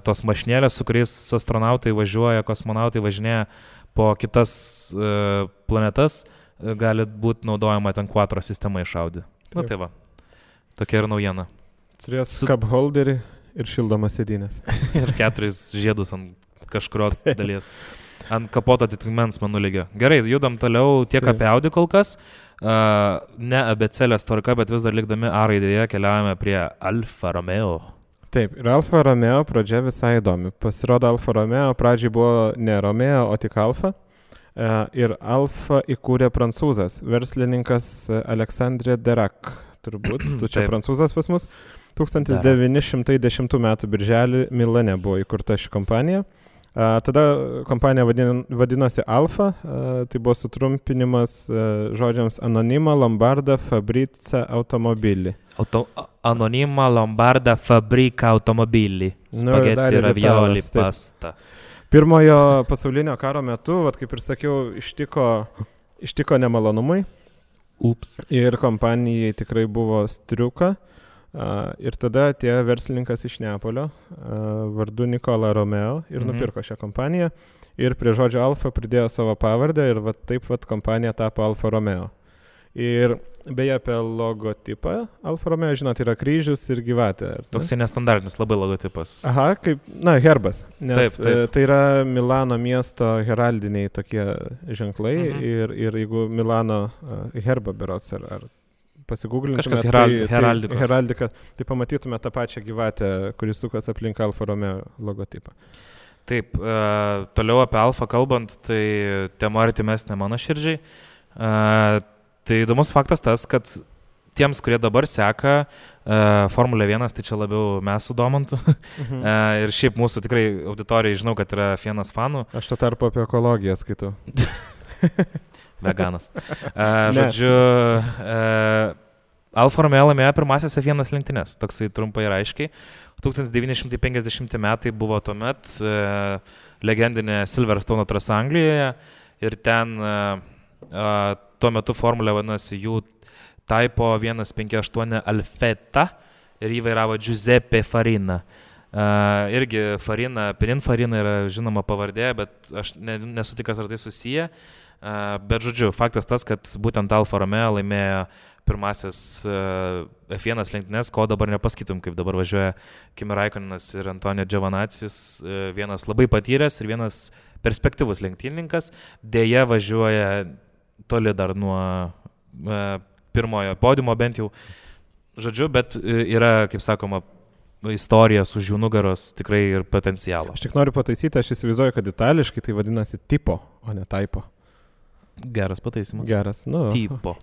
tos mašinėlės, su kuriais astronautai važiuoja, kosmonautai važinėja po kitas planetas, gali būti naudojama ten Quattro sistema iš Audi. Na tai va, tokia ir naujiena. Turės cup holderį ir šildomas sėdynės. Ir 4 žiedus ant kažkurios dalies. Ant kapoto atitikmens mėnulygio. Gerai, judam toliau tiek apie Audi kol kas. Ne abėcėlės tvarka, bet vis dar likdami A raidėje keliaujame prie Alfa Romeo. Taip, ir Alfa Romeo pradžia visai įdomi. Pasirodo, Alfa Romeo pradžiai buvo ne Romeo, o tik Alfa. Ir Alfa įkūrė prancūzas, verslininkas Alexandre Derac, turbūt, tu čia prancūzas pas mus. 1910 m. birželį Milane buvo įkurta ši kompanija. Tada kompanija vadinosi Alfa, tai buvo sutrumpinimas žodžiams Anonima, Lombarda, Fabrica, Automobilį. Anonima, Lombarda, Fabrica, Automobilį. Spaghetti, ravioli, pasta. Pirmojo pasaulinio karo metu, kaip ir sakiau, ištiko nemalonumai. Ups. Ir kompanijai tikrai buvo striuka. Ir tada atėjo verslininkas iš Neapolio, vardu Nikola Romeo, ir nupirko šią kompaniją. Ir prie žodžio Alfa pridėjo savo pavardę ir taip kompanija tapo Alfa Romeo. Ir beje apie logotipą Alfa Romeo, žinot, yra kryžius ir gyvatė. Toksai nestandartinis labai logotipas. Aha, kaip, herbas. Nes taip. Tai yra Milano miesto heraldiniai tokie ženklai. Ir jeigu Milano herbą berots ar pasigūglintume heraldika, tai pamatytume tą pačią gyvatę, kuris sukas aplink Alfa Romeo logotipą. Taip, toliau apie Alfa kalbant, tai tema artimesnė mano širdžiai. Tai įdomus faktas tas, kad tiems, kurie dabar seka Formulę 1, tai čia labiau mes sudomintų. Ir šiaip mūsų tikrai auditorijai žinau, kad yra vienas fanų. Aš to tarpu apie ekologiją skaitau. Veganas. Žodžiu, Alfa Romeo laimėjo pirmasias F1 lenktynės, toksai trumpai ir aiškiai. 1950 metai buvo tuomet legendinė Silverstone trasa Anglijoje ir ten tuo metu formulė vadinasi jų Typo 158 Alfetta ir jį vairavo Giuseppe Farina. Irgi Farina, Pininfarina yra žinoma pavardė, bet aš nesu tikras, ar tai susiję. Bet žodžiu, faktas tas, kad būtent Alfa Romeo laimėjo pirmasis F1 lenktynės, ko dabar nepasakytum, kaip dabar važiuoja Kimi Raikkonenas ir Antonio Giovinazzi, vienas labai patyręs ir vienas perspektyvus lenktynininkas, dėja važiuoja toli dar nuo pirmojo podiumo bent jau, žodžiu, bet yra, kaip sakoma, istorija už jų nugaros tikrai ir potencialo. Aš tik noriu pataisyti, aš įsivaizduoju, kad itališkai tai vadinasi tipo, o ne typo. Geras pataisimas. Geras, nu. Tipo.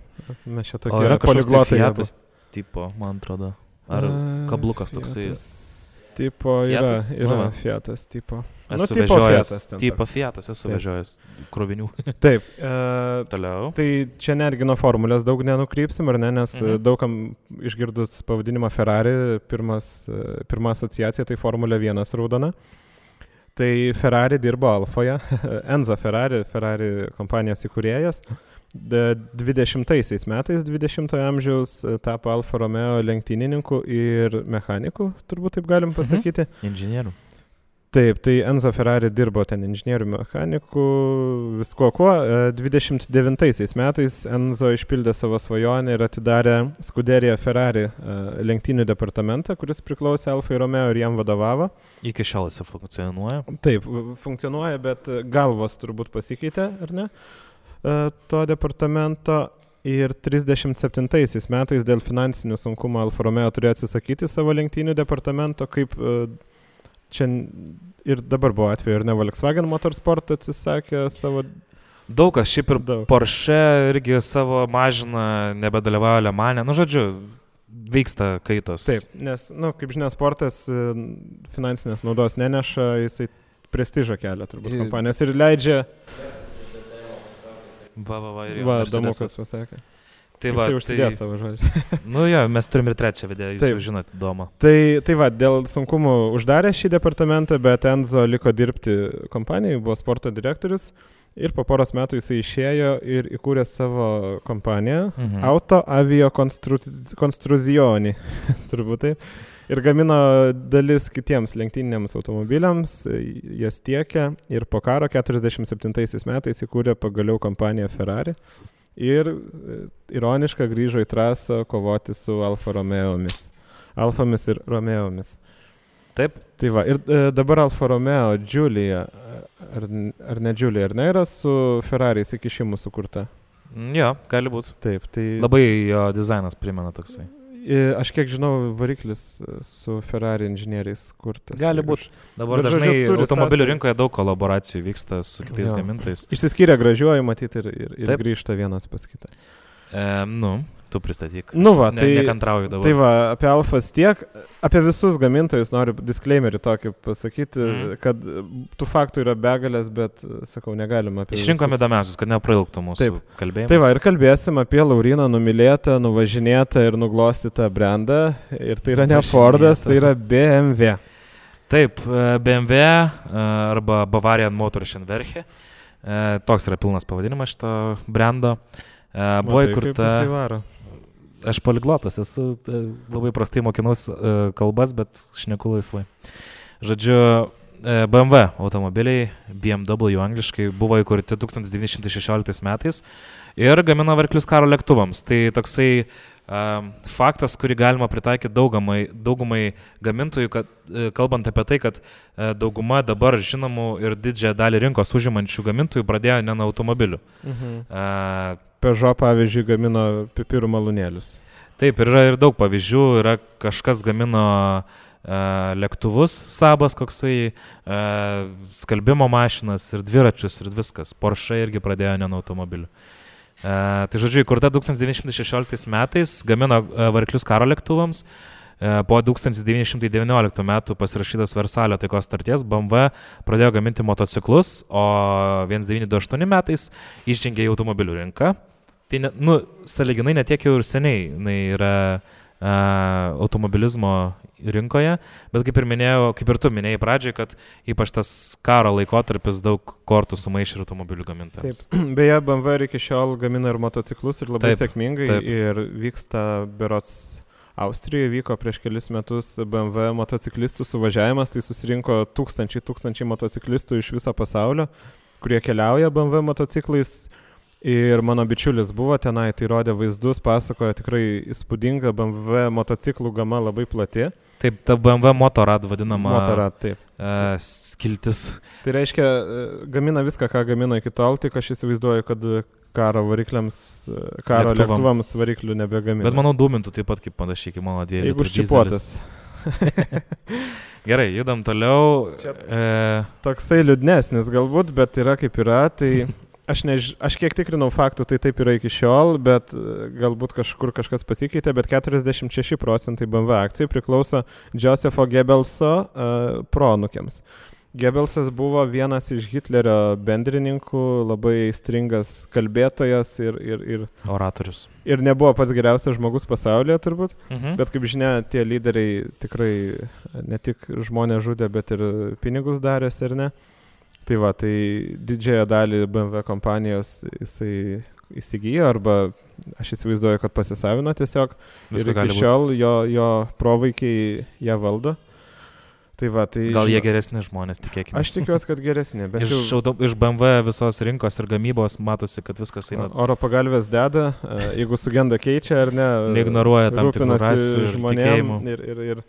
Mes čia tokie poliglotai. Fiatas tipo, man atrodo. Ar kablukas toksai. Tipo yra Fiatas tipo. Esu vežiojęs, esu vežiojęs krovinių. Taip. Toliau. Tai čia netgi nuo formulės daug nenukrypsim, ar ne, nes daugam išgirdus pavadinimą Ferrari, pirma asociacija tai Formulė 1 raudona. Tai Ferrari dirbo Alfoje, Enzo Ferrari kompanijos įkūrėjas. 20 metais, 20-ojo amžiaus tapo Alfa Romeo lenktynininku ir mechaniku, turbūt taip galim pasakyti. Inžinierių. Taip, tai Enzo Ferrari dirbo ten inžinierių mechaniku, visko kuo. 29 metais Enzo išpildė savo svajonę ir atidarė Scuderia Ferrari lenktynių departamentą, kuris priklausė Alfai Romeo ir jam vadovavo. Iki šiol jis funkcionuoja. Taip, funkcionuoja, bet galvos turbūt pasikeitė, ar ne? To departamento. Ir 37 metais dėl finansinių sunkumų Alfa Romeo turėjo atsisakyti savo lenktynių departamento, kaip čia ir dabar buvo atveju, ir ne Volkswagen Motorsport atsisakė savo... Daug kas, šiaip ir Porsche irgi savo mažina, nebedalyvauja Le Mane. Nu, žodžiu, vyksta kaitos. Taip, nes, kaip žinia, sportas finansinės naudos neneša, jisai prestižą kelia turbūt kompanijos ir leidžia... Va, Damukas pasakė. Tai jisai užsidėjo savo žodžią. Nu jo, mes turim ir trečią video, jūs jau žinot, Domą. Tai va, dėl sunkumų uždarė šį departamentą, bet Enzo liko dirbti kompanijai, buvo sporto direktorius ir po poros metų jisai išėjo ir įkūrė savo kompaniją Auto Avio Construzioni, turbūt taip. Ir gamino dalis kitiems lenktyniniams automobiliams, jas tiekė ir po karo 47 metais įkūrė pagaliau kompaniją Ferrari ir ironiškai grįžo į trasą kovoti su Alfa Romeomis. Alfomis ir Romeomis. Taip. Tai va, ir dabar Alfa Romeo Giulia, ar ne Giulia, ar ne, yra su Ferrari įsikišimu sukurta? Jo, gali būti. Taip, tai... Labai jo dizainas primena toksai. Aš kiek žinau, variklis su Ferrari inžinieriais kurtas. Gali būti. Dabar dažnai automobilių rinkoje daug kolaboracijų vyksta su kitais gamintojais. Išsiskyrė gražiuoju matyti ir grįžta vienas pas kitą. Tu pristatyk. Nekantrauju dabar. Tai va, apie Alfas tiek, apie visus gamintojus noriu disclaimerį tokį pasakyti, kad tų faktų yra begalės, bet, sakau, negalima apie Išrinkom įdomiausius, kad neprailgtų mūsų kalbėjimas. Tai va, ir kalbėsim apie Lauryną numylėtą, nuvažinėtą ir nuglostytą brandą. Ir tai yra ne Fordas, tai yra BMW. Taip, BMW arba Bavarian Motorschenwerke. Toks yra pilnas pavadinimas šito brando. Buvo įkurta... Aš poliglotas, esu labai prastai mokinus kalbas, bet šneku laisvai. Žodžiu, BMW automobiliai, BMW angliškai, buvo įkurti 1916 metais ir gamino variklius karo lėktuvams. Tai toksai faktas, kurį galima pritaikyti daugumai gamintojų, kad, kalbant apie tai, kad dauguma dabar žinomų ir didžiąją dalį rinkos užimančių gamintojų pradėjo ne nuo automobilių. Peugeot, pavyzdžiui, gamino pipirų malūnėlius. Taip, yra ir daug pavyzdžių. Yra kažkas gamino lėktuvus, Sabas koksai, skalbimo mašinas ir dviračius ir viskas. Porsche irgi pradėjo ne nuo automobilių. Tai žodžiu, įkurta 1916 metais, gamino variklius karo lėktuvams. Po 1919 metų pasirašytos Versalio taikos sutarties BMW pradėjo gaminti motociklus, o 1928 metais išžengė į automobilių rinką. Tai, sąlyginai netiek jau ir seniai yra automobilizmo rinkoje, bet kaip ir tu minėjai pradžiai, kad ypač tas karo laikotarpis daug kortų sumaišė ir automobilių gamintojams. Taip, beje, BMW iki šiol gamina ir motociklus ir labai sėkmingai ir vyksta berods Austrijoje vyko prieš kelis metus BMW motociklistų suvažiavimas, tai susirinko tūkstančiai motociklistų iš viso pasaulio, kurie keliauja BMW motociklais Ir mano bičiulis buvo tenai, tai rodė vaizdus, pasakojo tikrai įspūdinga BMW motociklų gama labai plati. Taip, ta BMW Motorrad vadinama. Motorrad, taip. Skiltis. Tai reiškia, gamina viską, ką gamino iki tol, tik aš įsivaizduoju, kad karo lėktuvams variklių nebegamina. Bet manau, dūmintų taip pat kaip panašiai, kaip mano 2 litrų. Jeigu užčipuotas. Gerai, judam toliau. Toksai liūdnesnis galbūt, bet yra kaip yra, tai aš kiek tikrinau faktų, tai taip yra iki šiol, bet galbūt kažkur kažkas pasikeitė, bet 46% BMW akcijų priklauso Josepho Goebbelso proanūkiams. Goebbelsas buvo vienas iš Hitlerio bendrininkų, labai stringas kalbėtojas ir oratorius. Ir nebuvo pats geriausias žmogus pasaulyje turbūt, bet kaip žinia, tie lyderiai tikrai ne tik žmonės žudė, bet ir pinigus darės ir ne. Tai va, tai didžiąją dalį BMW kompanijos jisai įsigijo arba aš įsivaizduoju, kad pasisavino tiesiog. Ir iki šiol jo provaikiai ją valdo. Tai va, tai gal jie geresni žmonės, tikėkime. Aš tikiuosi, kad geresni. Bet iš BMW visos rinkos ir gamybos matosi, kad viskas eina. Oro pagalvės deda, jeigu sugenda keičia ar ne. Neignoruoja tam tikrų rasių ir tikėjimų. Ir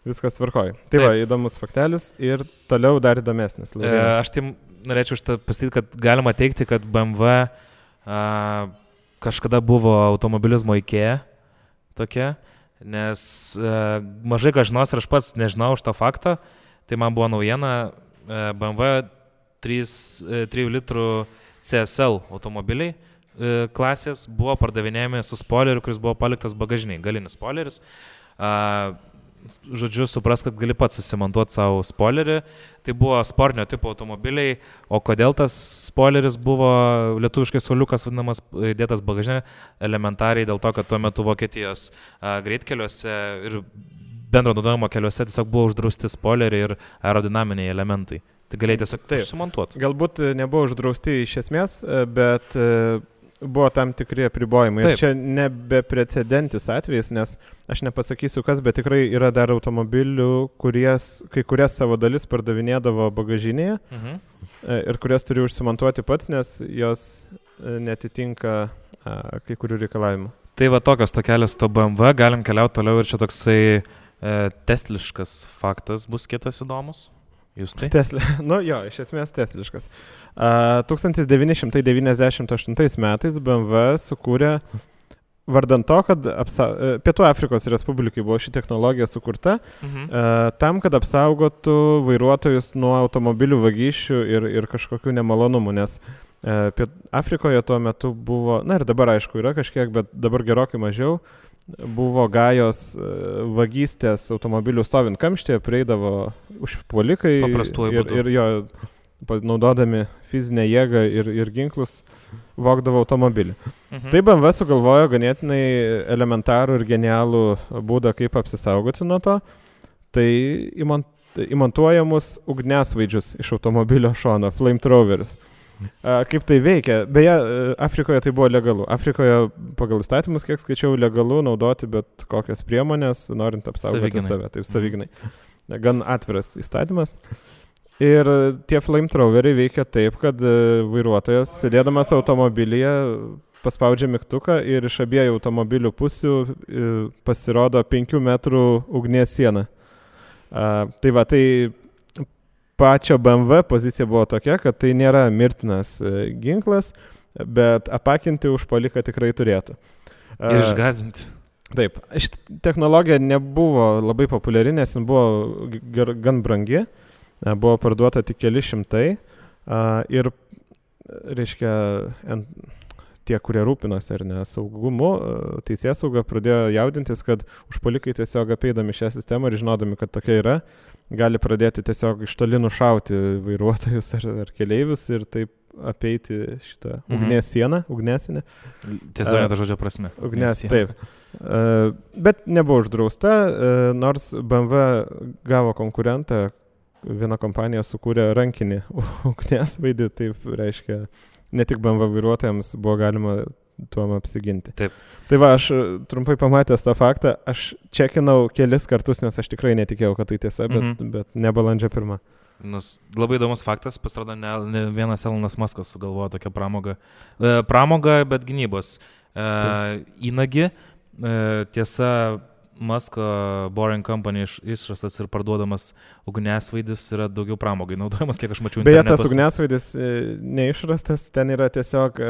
viskas tvarkoja. Tai va, įdomus faktelis ir toliau dar įdomesnis. Aš tai norėčiau pasakyti, kad galima teikti, kad BMW kažkada buvo automobilizmo IKEA tokia. Nes mažai ką žinos ir aš pats nežinau už tą faktą, tai man buvo naujiena BMW 3 litrų CSL automobiliai klasės buvo pardavinėjami su spoileriu, kuris buvo paliktas bagažiniai, galinis spoileris. Žodžiu, supras, kad gali pats susimontuoti savo spoilerį. Tai buvo sportinio tipo automobiliai, o kodėl tas spoileris buvo lietuviškai suoliukas vadinamas dėtas bagažinė, elementariai dėl to, kad tuo metu Vokietijos greitkeliuose ir bendro naudojimo keliuose tiesiog buvo uždrausti spoileriai ir aerodinaminiai elementai. Tai galėjai tiesiog sumontuoti. Galbūt nebuvo uždrausti iš esmės, bet buvo tam tikri apribojimai. Ir čia nebeprecedentis atvejis, nes aš nepasakysiu kas, bet tikrai yra dar automobilių, kai kurias savo dalis pardavinėdavo bagažinėje ir kurias turi užsimontuoti pats, nes jos netitinka kai kurių reikalavimų. Tai va tokios tokelės to BMW, galim keliauti toliau ir čia toksai tesliškas faktas bus kitas įdomus. Jūs tai? Iš esmės tesliškas. 1998 metais BMW sukūrė, vardant to, kad Pietų Afrikos Respublikai buvo ši technologija sukurta, tam, kad apsaugotų vairuotojus nuo automobilių vagysčių ir kažkokių nemalonumų, nes Afrikoje tuo metu buvo, ir dabar aišku yra kažkiek, bet dabar gerokai mažiau, buvo gajos vagystės automobilių stovint kamštyje, prieidavo užpuolikai ir jo naudodami fizinę jėgą ir ginklus vogdavo automobilį. Tai BMW sugalvojo ganėtinai elementarų ir genialų būdą, kaip apsisaugoti nuo to. Tai įmontuojamus ugniasvaidžius iš automobilio šono, flamethrowerius. Kaip tai veikia? Beje, Afrikoje tai buvo legalu. Afrikoje pagal įstatymus, kiek skaičiau, legalu naudoti bet kokias priemonės, norint apsaugoti save. Taip, savygnai. Gan atviras įstatymas. Ir tie flamethroweriai veikia taip, kad vairuotojas, sėdėdamas automobilyje, paspaudžia mygtuką ir iš abiejų automobilių pusių pasirodo 5 metrų ugnies siena. Tai va, tai pačio BMW pozicija buvo tokia, kad tai nėra mirtinas ginklas, bet apakinti užpuoliką tikrai turėtų. Ir išgąsdinti. Taip, ši technologija nebuvo labai populiari, nes jin buvo gan brangi, buvo parduota tik keli šimtai ir, reiškia, tie, kurie rūpinosi ar ne saugumu, teisėsauga pradėjo jaudintis, kad užpuolikai tiesiog apeidami šią sistemą ir žinodami, kad tokia yra, gali pradėti tiesiog iš toli nušauti vairuotojus ar keleivius ir taip apeiti šitą ugnies sieną, ugnesinę. Tiesiog to žodžio prasme. Ugnes, taip. Bet nebuvo uždrausta, nors BMW gavo konkurentą, viena kompanija sukūrė rankinį ugniasvaidį, taip reiškia, ne tik BMW vairuotojams buvo galima tuom apsiginti. Taip. Tai va, aš trumpai pamatęs tą faktą, aš čekinau kelis kartus, nes aš tikrai netikėjau, kad tai tiesa, bet ne balandžio 1. Labai įdomus faktas, pasirodo, ne vienas Elonas Muskas sugalvojo tokią pramogą, bet gynybos įnagį. Tiesa, Musko Boring Company išrastas ir parduodamas ugniasvaidis yra daugiau pramogai naudojamas, kiek aš mačiau internetuose. Beje, tas ugniasvaidis neišrastas, ten yra tiesiog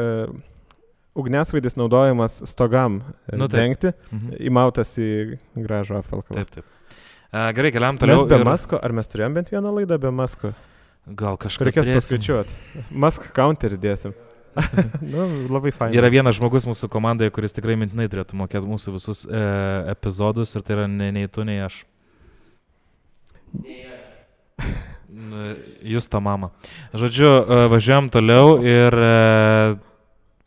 ugniasvaidis naudojamas stogam dengti, įmautas į gražų apvalkalą. Taip. Gerai, keliam toliau. Mes be Musko, ar mes turėjom bent vieną laidą be Musko? Gal kažką reikės paskaičiuoti. Musk counterį dėsim. Labai fain. Yra vienas žmogus mūsų komandoje, kuris tikrai mintinai turėtų mokėti mūsų visus epizodus ir tai yra nei tu, nei aš. Jūs ta mama. Žodžiu, važiuojam toliau ir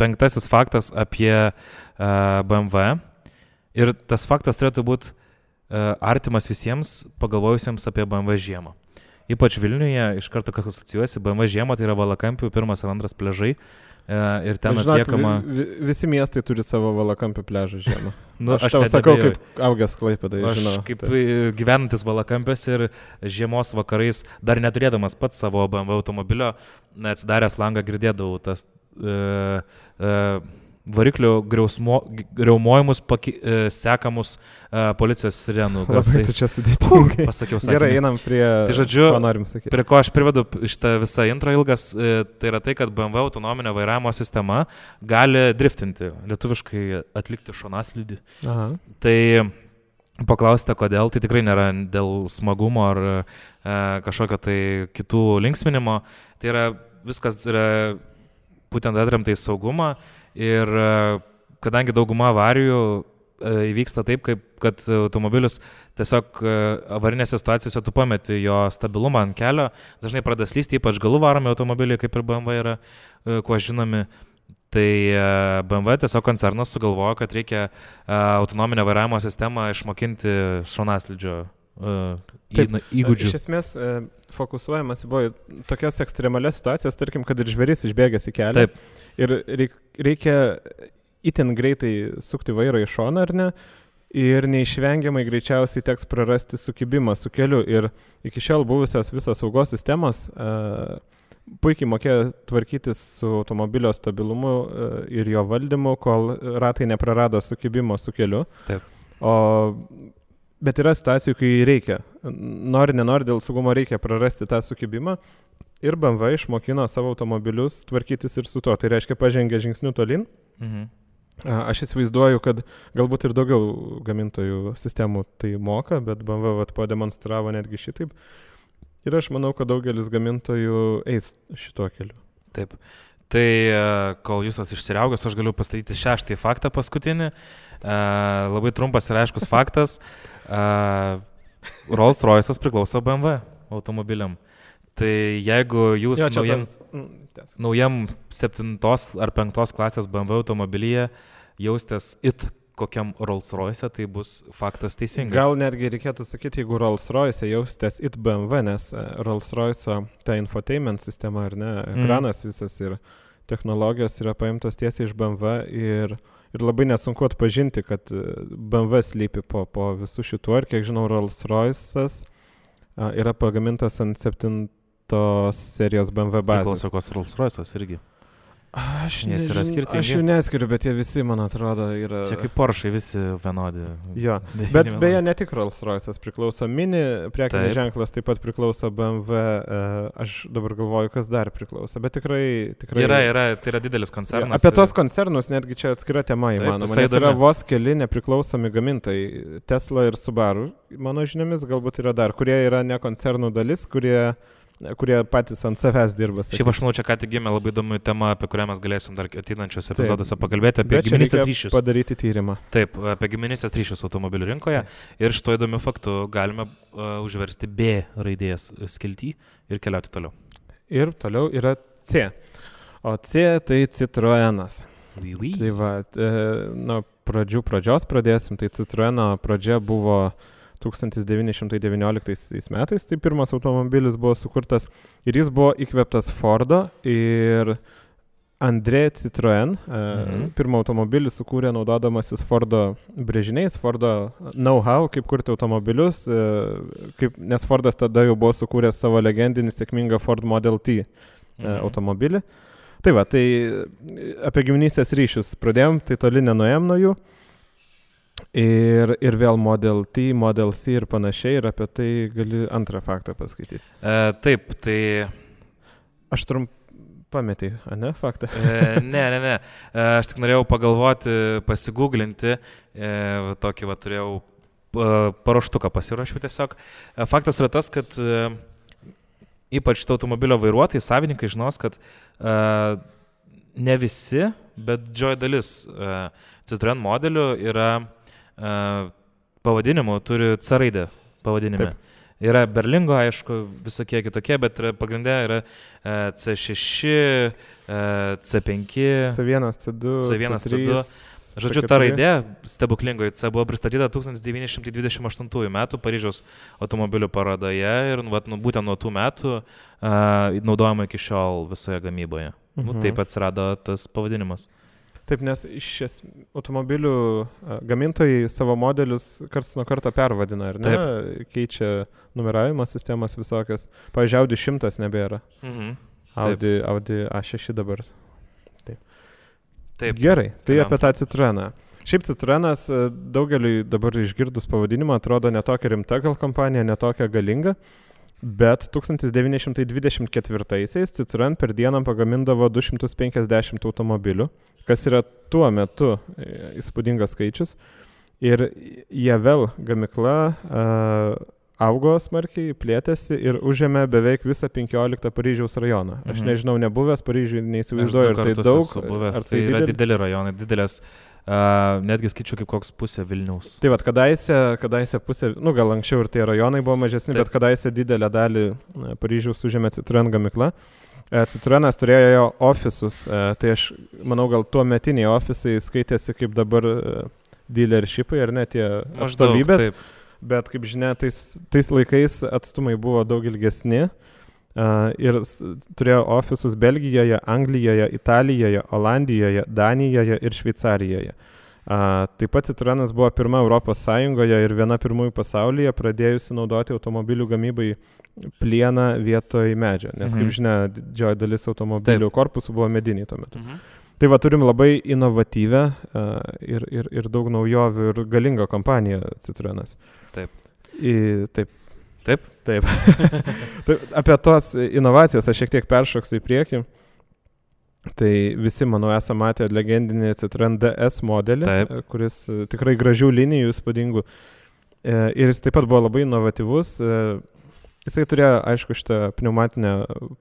5. faktas apie BMW. Ir tas faktas turėtų būti artimas visiems pagalvojusiems apie BMW žiemą. Ypač Vilniuje iš karto kas asocijuosi, BMW žiemą tai yra Valakampių 1 ir 2 pliažai. Ir ten atliekama... Visi miestai turi savo Valakampių pliažą žiemą. Aš tau sakau, kaip augęs Klaipėdai, žinau. Aš kaip gyvenantis Valakampiuose ir žiemos vakarais, dar neturėdamas pats savo BMW automobilio, atsidaręs langą girdėdavau tas variklio griaumojimus sekamus policijos sirenų garsais. Labai tu čia sudėtingai. Pasakiau sakinį. Gerai, einam prie, tai žodžiu, ko norim sakyti. Prie ko aš privedu šitą visą intro ilgas, tai yra tai, kad BMW autonominio vairavimo sistema gali driftinti, lietuviškai atlikti šonaslydį. Aha. Tai paklausite, kodėl, tai tikrai nėra dėl smagumo ar kažkokio tai kitų linksminimo. Tai yra, viskas yra būtent atremta į saugumą. Ir kadangi dauguma avarijų įvyksta taip, kad automobilis tiesiog avarinėse situacijose tu pameti jo stabilumą ant kelio, dažnai pradeda slysti, ypač galų varomi automobiliai, kaip ir BMW yra, kuo žinomi. Tai BMW tiesiog koncernas sugalvojo, kad reikia autonominę vairavimo sistemą išmokinti šonaslydžio įgūdžių. Iš esmės fokusuojamas buvo tokias ekstremalias situacijas, tarkim, kad ir žvėris išbėgęs į kelią. Taip. Ir reikia itin greitai sukti vairą į šoną, ar ne? Ir neišvengiamai greičiausiai teks prarasti sukibimą su keliu. Ir iki šiol buvusios visos saugos sistemos puikiai mokėjo tvarkytis su automobilio stabilumu ir jo valdymu, kol ratai neprarado sukibimo su keliu. Taip. Bet yra situacijų, kai reikia. Nori, nenori, dėl saugumo reikia prarasti tą sukibimą. Ir BMW išmokino savo automobilius tvarkytis ir su to. Tai reiškia, pažengė žingsnių tolin. Aš įsivaizduoju, kad galbūt ir daugiau gamintojų sistemų tai moka, bet BMW pademonstravo netgi šitaip. Ir aš manau, kad daugelis gamintojų eis šituo keliu. Taip. Tai kol jūs išsiriaugęs, aš galiu pastatyti 6. faktą paskutinį. Labai trumpas ir aiškus faktas. Rolls-Royce'as priklauso BMW automobiliam. Tai jeigu jūs naujam 7 ar 5 klasės BMW automobilyje jaustės kokiam Rolls-Royce, tai bus faktas teisingas. Gal netgi reikėtų sakyti, jeigu Rolls-Royce jaustės BMW, nes Rolls-Royce ta infotainment sistema, ar ne, ekranas visas ir technologijos yra paimtos tiesiai iš BMW ir labai nesunku atpažinti, kad BMW slypi po visų šitų, ir kiek žinau, Rolls-Royce'as yra pagamintas ant 7 serijos BMW bazės. Priklauso kos Rolls-Royce'as irgi. Aš jų neskiriu, bet jie visi, man atrodo, yra... Čia kaip Porsche, visi vienodi. Jo, bet beje, ne tik Rolls-Royce'as priklauso, Mini prekinis ženklas taip pat priklauso BMW, aš dabar galvoju, kas dar priklauso, bet tikrai... Yra, tai yra didelis koncernas. Apie tos koncernus netgi čia atskira tema įmanoma, nes yra vos keli nepriklausomi gamintojai, Tesla ir Subaru, mano žiniomis galbūt yra dar, kurie yra ne koncernų dalis, kurie patys ant savęs dirba. Šiaip aš manau, čia ką tik gimė labai įdomi tema, apie kurią mes galėsim dar ateinančios epizoduose pakalbėti, apie giminystės ryšius. Padaryti tyrimą. Taip, apie giminystės ryšius automobilių rinkoje. Ir šito įdomiu faktu galime užversti B raidės skiltį ir keliauti toliau. Ir toliau yra C. O C tai Citroenas. Oui. Tai va, nuo pradžios pradėsim. Tai Citroeno pradžia buvo 1919 metais, tai pirmas automobilis buvo sukurtas ir jis buvo įkvėptas Fordo ir André Citroën pirmą automobilį sukūrė naudodamasis Fordo brėžiniais, Fordo know-how, kaip kurti automobilius, nes Fordas tada jau buvo sukūręs savo legendinį sėkmingą Ford Model T automobilį. Tai va, tai apie giminystės ryšius pradėjom, tai toli nenuėjom nuo jų. Ir vėl Model T, Model C ir panašiai, ir apie tai gali antrą faktą paskaityti. Taip, tai... Aš pametį, ne, faktą? Ne. Aš tik norėjau pagalvoti, pasigūglinti, tokį va turėjau paruoštuką pasirašiau tiesiog. Faktas yra tas, kad ypač šito automobilio vairuotojai, savininkai žinos, kad ne visi, bet didžioji dalis Citroën modelių yra pavadinimų, turi C raidę pavadinime. Taip. Yra Berlingo, aišku, visokie kitokie, bet pagrindė yra C6, C5, C1, C2, C1, C3, C2. Žodžiu, ta raidė stebuklingoji C buvo pristatyta 1928 metų Paryžiaus automobilių parodoje ir būtent nuo tų metų naudojama iki šiol visoje gamyboje. Taip atsirado tas pavadinimas. Taip, nes iš automobilių gamintojai savo modelius karts nuo karto pervadina, ar ne? Taip. Keičia numeravimo sistemas visokias. Pavyzdžiui, Audi 100 nebėra. Audi A6 dabar. Taip. Gerai, tai apie tą Citroeną. Šiaip Citroenas daugeliui dabar išgirdus pavadinimą atrodo netokia rimta gal kompanija, netokia galinga. Bet 1924-aisiais Citroën per dieną pagamindavo 250 automobilių, kas yra tuo metu įspūdingas skaičius. Ir Javel gamykla augo smarkiai, plėtėsi ir užėmė beveik visą 15 Paryžiaus rajoną. Aš nežinau, nebuvęs Paryžiui, neįsivaizduoju, ar tai daug. Ar tai yra dideli rajonai, didelės. Netgi skaičiu kaip koks pusė Vilniaus. Tai vat, kadaise pusė, gal anksčiau ir tie rajonai buvo mažesni, bet kadaise didelę dalį Paryžiaus užėmė Citroën gamykla. Citroenas turėjo ofisus, tai aš manau, gal tuo metiniai ofisai skaitėsi kaip dabar dealershipai, ar ne tie atstovybės, bet kaip žinia, tais laikais atstumai buvo daug ilgesni. Ir turėjo ofisus Belgijoje, Anglijoje, Italijoje, Olandijoje, Danijoje ir Šveicarijoje. Taip pat Citroenas buvo pirma Europos Sąjungoje ir viena pirmųjų pasaulyje pradėjusi naudoti automobilių gamybai plieną vietoj medžio, nes kaip žinia, didžioji dalis automobilių korpusų buvo mediniai tuo metu. Tai va, turim labai inovatyvę ir daug naujovių ir galingą kompaniją Citroenas. Taip. Apie tos inovacijas aš šiek tiek peršoksiu į priekį. Tai visi, manau, esame matę legendinį Citroën DS modelį, kuris tikrai gražių linijų, įspūdingų. Ir jis taip pat buvo labai inovatyvus. Jisai turėjo, aišku, šitą pneumatinę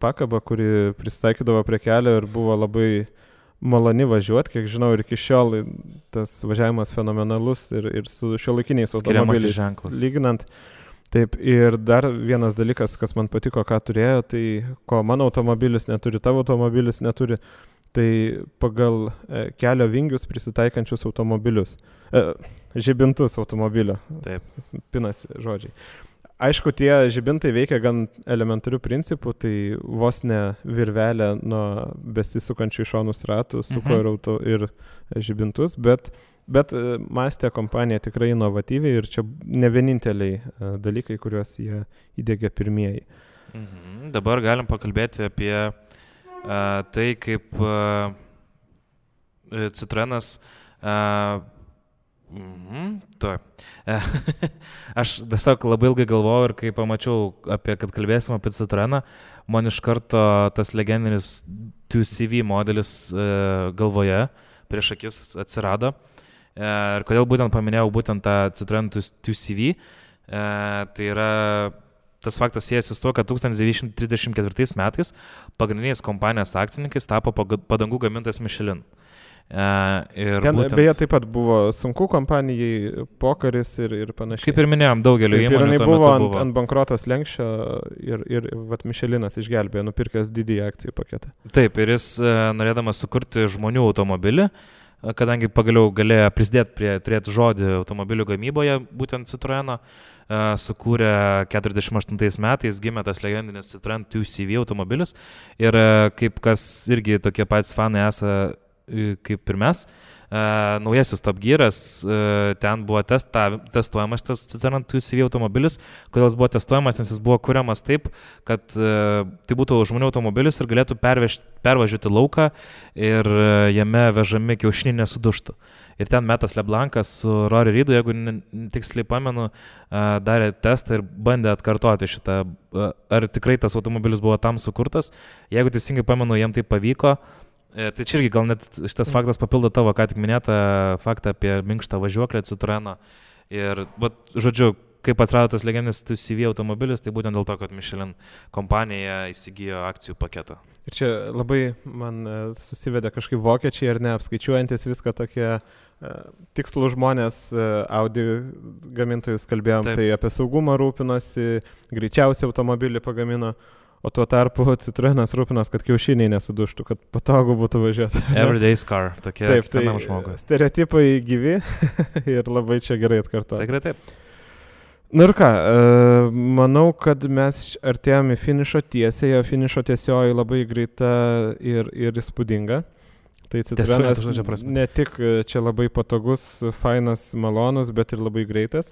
pakabą, kuri pristaikydavo prie kelio ir buvo labai maloni važiuoti. Kiek žinau, ir iki šiol tas važiavimas fenomenalus ir su šiuolaikiniais automobiliais lyginant. Taip, ir dar vienas dalykas, kas man patiko, ką turėjo, tai ko mano automobilis neturi, tavo automobilis neturi, tai pagal kelio vingius prisitaikančius automobilius, žibintus automobilio. Taip. Pinasi žodžiai. Aišku, tie žibintai veikia gan elementarių principų, tai vos ne virvelė nuo besisukančių šonus ratų suko ir žibintus, bet mąstė kompanija tikrai inovatyviai ir čia ne vieninteliai dalykai, kuriuos jie įdėgė pirmieji. Dabar galim pakalbėti apie tai, kaip Citroenas aš tiesiog labai ilgai galvojau ir kai pamačiau, kad kalbėsim apie Citroeną, man iš karto tas legendinis 2CV modelis galvoje prieš akis atsirado. Ir kodėl būtent paminėjau būtent tą Citroën 2CV, tai yra tas faktas siejasi su tuo, kad 1934 metais pagrindiniais kompanijos akcininkais tapo padangų gamintojas Michelin. Ten būtent, beje, taip pat buvo sunku kompanijai, pokaris ir panašiai. Kaip ir minėjom, daugelio įmonių tuo metu buvo. Ant bankrotos lenkščio ir Michelinas išgelbėjo, nupirkęs didįjį akcijų paketą. Taip, ir jis norėdamas sukurti žmonių automobilį, kadangi pagaliau galėjo prisidėti prie turėti žodį automobilių gamyboje, būtent Citroeno, sukūrė 48 metais, gimė tas legendinis Citroen 2CV automobilis ir kaip kas irgi tokie patys fanai esą kaip ir mes, naujasis Top Gearas, ten buvo testuojamas tas Citroen 2CV automobilis. Kodėl jis buvo testuojamas, nes jis buvo kuriamas taip, kad tai būtų žmonių automobilis ir galėtų pervažiuoti lauką ir jame vežami kiaušiniai nesuduštų. Ir ten Metas Leblankas su Rory Reidu, jeigu tiksliai pamenu, darė testą ir bandė atkartoti šitą, ar tikrai tas automobilis buvo tam sukurtas. Jeigu teisingai pamenu, jam tai pavyko. Tai čia irgi gal net šitas faktas papildo tavo ką tik minėtą faktą apie minkštą važiuoklę Citroeno. Ir, žodžiu, kaip atrado tas legendinis CV automobilis, tai būtent dėl to, kad Michelin kompanija įsigijo akcijų paketą. Ir čia labai man susivedė kažkaip vokiečiai ir neapskaičiuojantis viską tokie tikslų žmonės, Audi gamintojus kalbėjom, taip. Tai apie saugumą rūpinosi, greičiausiai automobilį pagamino. O tuo tarpu Citroenas rūpinas, kad kiaušiniai nesuduštų, kad patogu būtų važiuoti. Everyday's car, tokie kiekvienam žmogui. Stereotipai gyvi ir labai čia gerai atkartuoti. Tikrai taip. Nu ir ką, manau, kad mes artėjame į finišo tiesiai, o finišo tiesioji labai greita ir įspūdinga. Tai Citroenas ne tik čia labai patogus, fainas, malonus, bet ir labai greitas.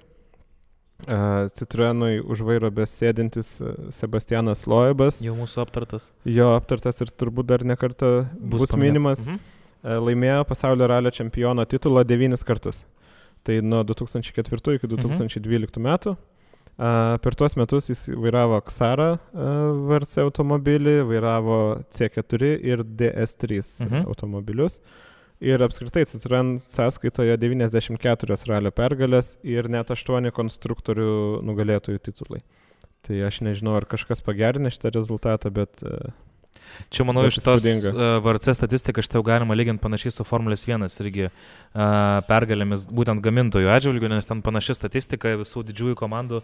Citroenui už vairo besėdintis Sebastianas Loebas. Jau mūsų aptartas. Jo aptartas ir turbūt dar ne kartą bus minimas. Laimėjo pasaulio ralio čempiono titulą 9 kartus. Tai nuo 2004 iki 2012 metų. Per tuos metus jis vairavo Xara VRC automobilį, vairavo C4 ir DS3 automobilius. Ir apskritai Citroen sąskaitoje 94 ralio pergalės ir net 8 konstruktorių nugalėtojų titulai. Tai aš nežinau, ar kažkas pagerinė šitą rezultatą, bet... Čia, manau, iš tos VRC statistiką šitą jau galima lyginti panašiai su Formulės 1 irgi pergalėmis būtent gamintojų atžvilgių, nes ten panaši statistika visų didžiųjų komandų,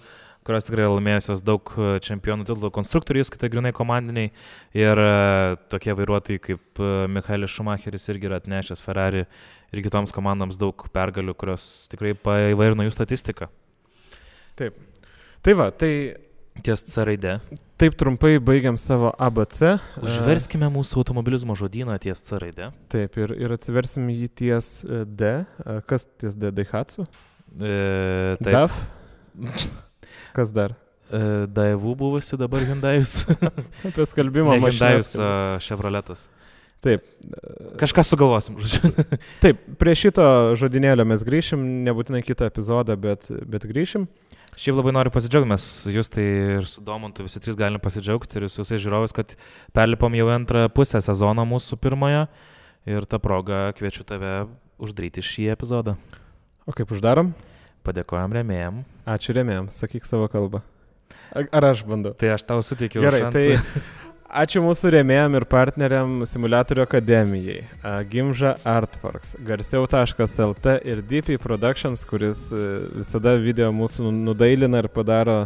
kurios tikrai laimėjusios daug čempionų titulų konstruktorių, skaitai grinai komandiniai ir tokie vairuotojai kaip Michaelis Schumacheris irgi yra atnešęs Ferrari ir kitoms komandoms daug pergalių, kurios tikrai paįvairino jų statistiką. Taip. Tai va, tai... Ties C raide. Taip trumpai baigiam savo ABC. Užverskime mūsų automobilizmo žodyną ties C raide. Taip, ir atsiversim jį ties D. Kas ties D? Daihatsu? DAF? Kas dar? Daewoo buvusi, dabar Hyundaius. Apie skalbimo mašinas. Hyundaius Chevroletas. Taip. Kažką sugalvosim. Taip, prie šito žodynėlio mes grįšim, nebūtinai kitą epizodą, bet grįšim. Šiaip labai noriu pasidžiaugti, mes jūs tai ir su Domantu visi trys galim pasidžiaugti ir su visais žiūrovais, kad perlipom jau antrą pusę sezono mūsų pirmojo ir tą progą kviečiu tave uždaryti šį epizodą. O kaip uždarom? Padėkojam rėmėjam. Ačiū rėmėjam, sakyk savo kalbą. Ar aš bandau? Tai aš tau suteikiau šansą. Gerai, tai ačiū mūsų rėmėjam ir partneriam Simuliatorių akademijai, Gimža Artworks, garsiau.lt ir DP Productions, kuris visada video mūsų nudailina ir padaro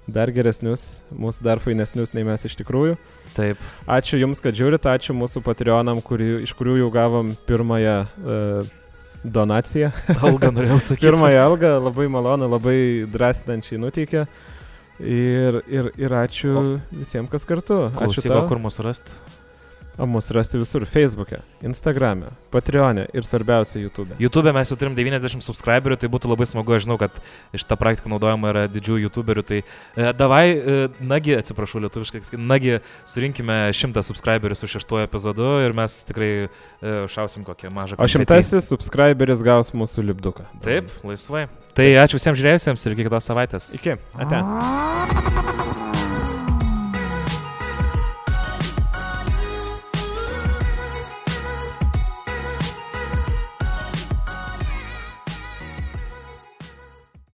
dar geresnius, mūsų dar fainesnius nei mes iš tikrųjų. Taip. Ačiū Jums, kad žiūrit, ačiū mūsų Patreonam, iš kurių jau gavom pirmąją donaciją. Algą norėjau sakyti. Pirmąją algą, labai malonu, labai drąsinančiai nuteikė. Ir ačiū visiems, kas kartu. Ačiū tau. Kur mūsų rasti? O mūsų rasti visur. Facebook'e, Instagram'e, Patreon'e ir svarbiausia YouTube'e. YouTube'e mes jau turim 90 subscriberių, tai būtų labai smagu, aš žinau, kad šitą praktiką naudojama yra didžiųjų YouTuberių, tai nagi, atsiprašau lietuviškai, nagi surinkime 100 subscriberių su 6 epizodu ir mes tikrai šausim kokią mažą konfetį. O 100 subscriberis gaus mūsų lipduką. Taip, laisvai. Tai ačiū visiems žiūrėjusiems ir iki kitos savaitės. Iki. Ate.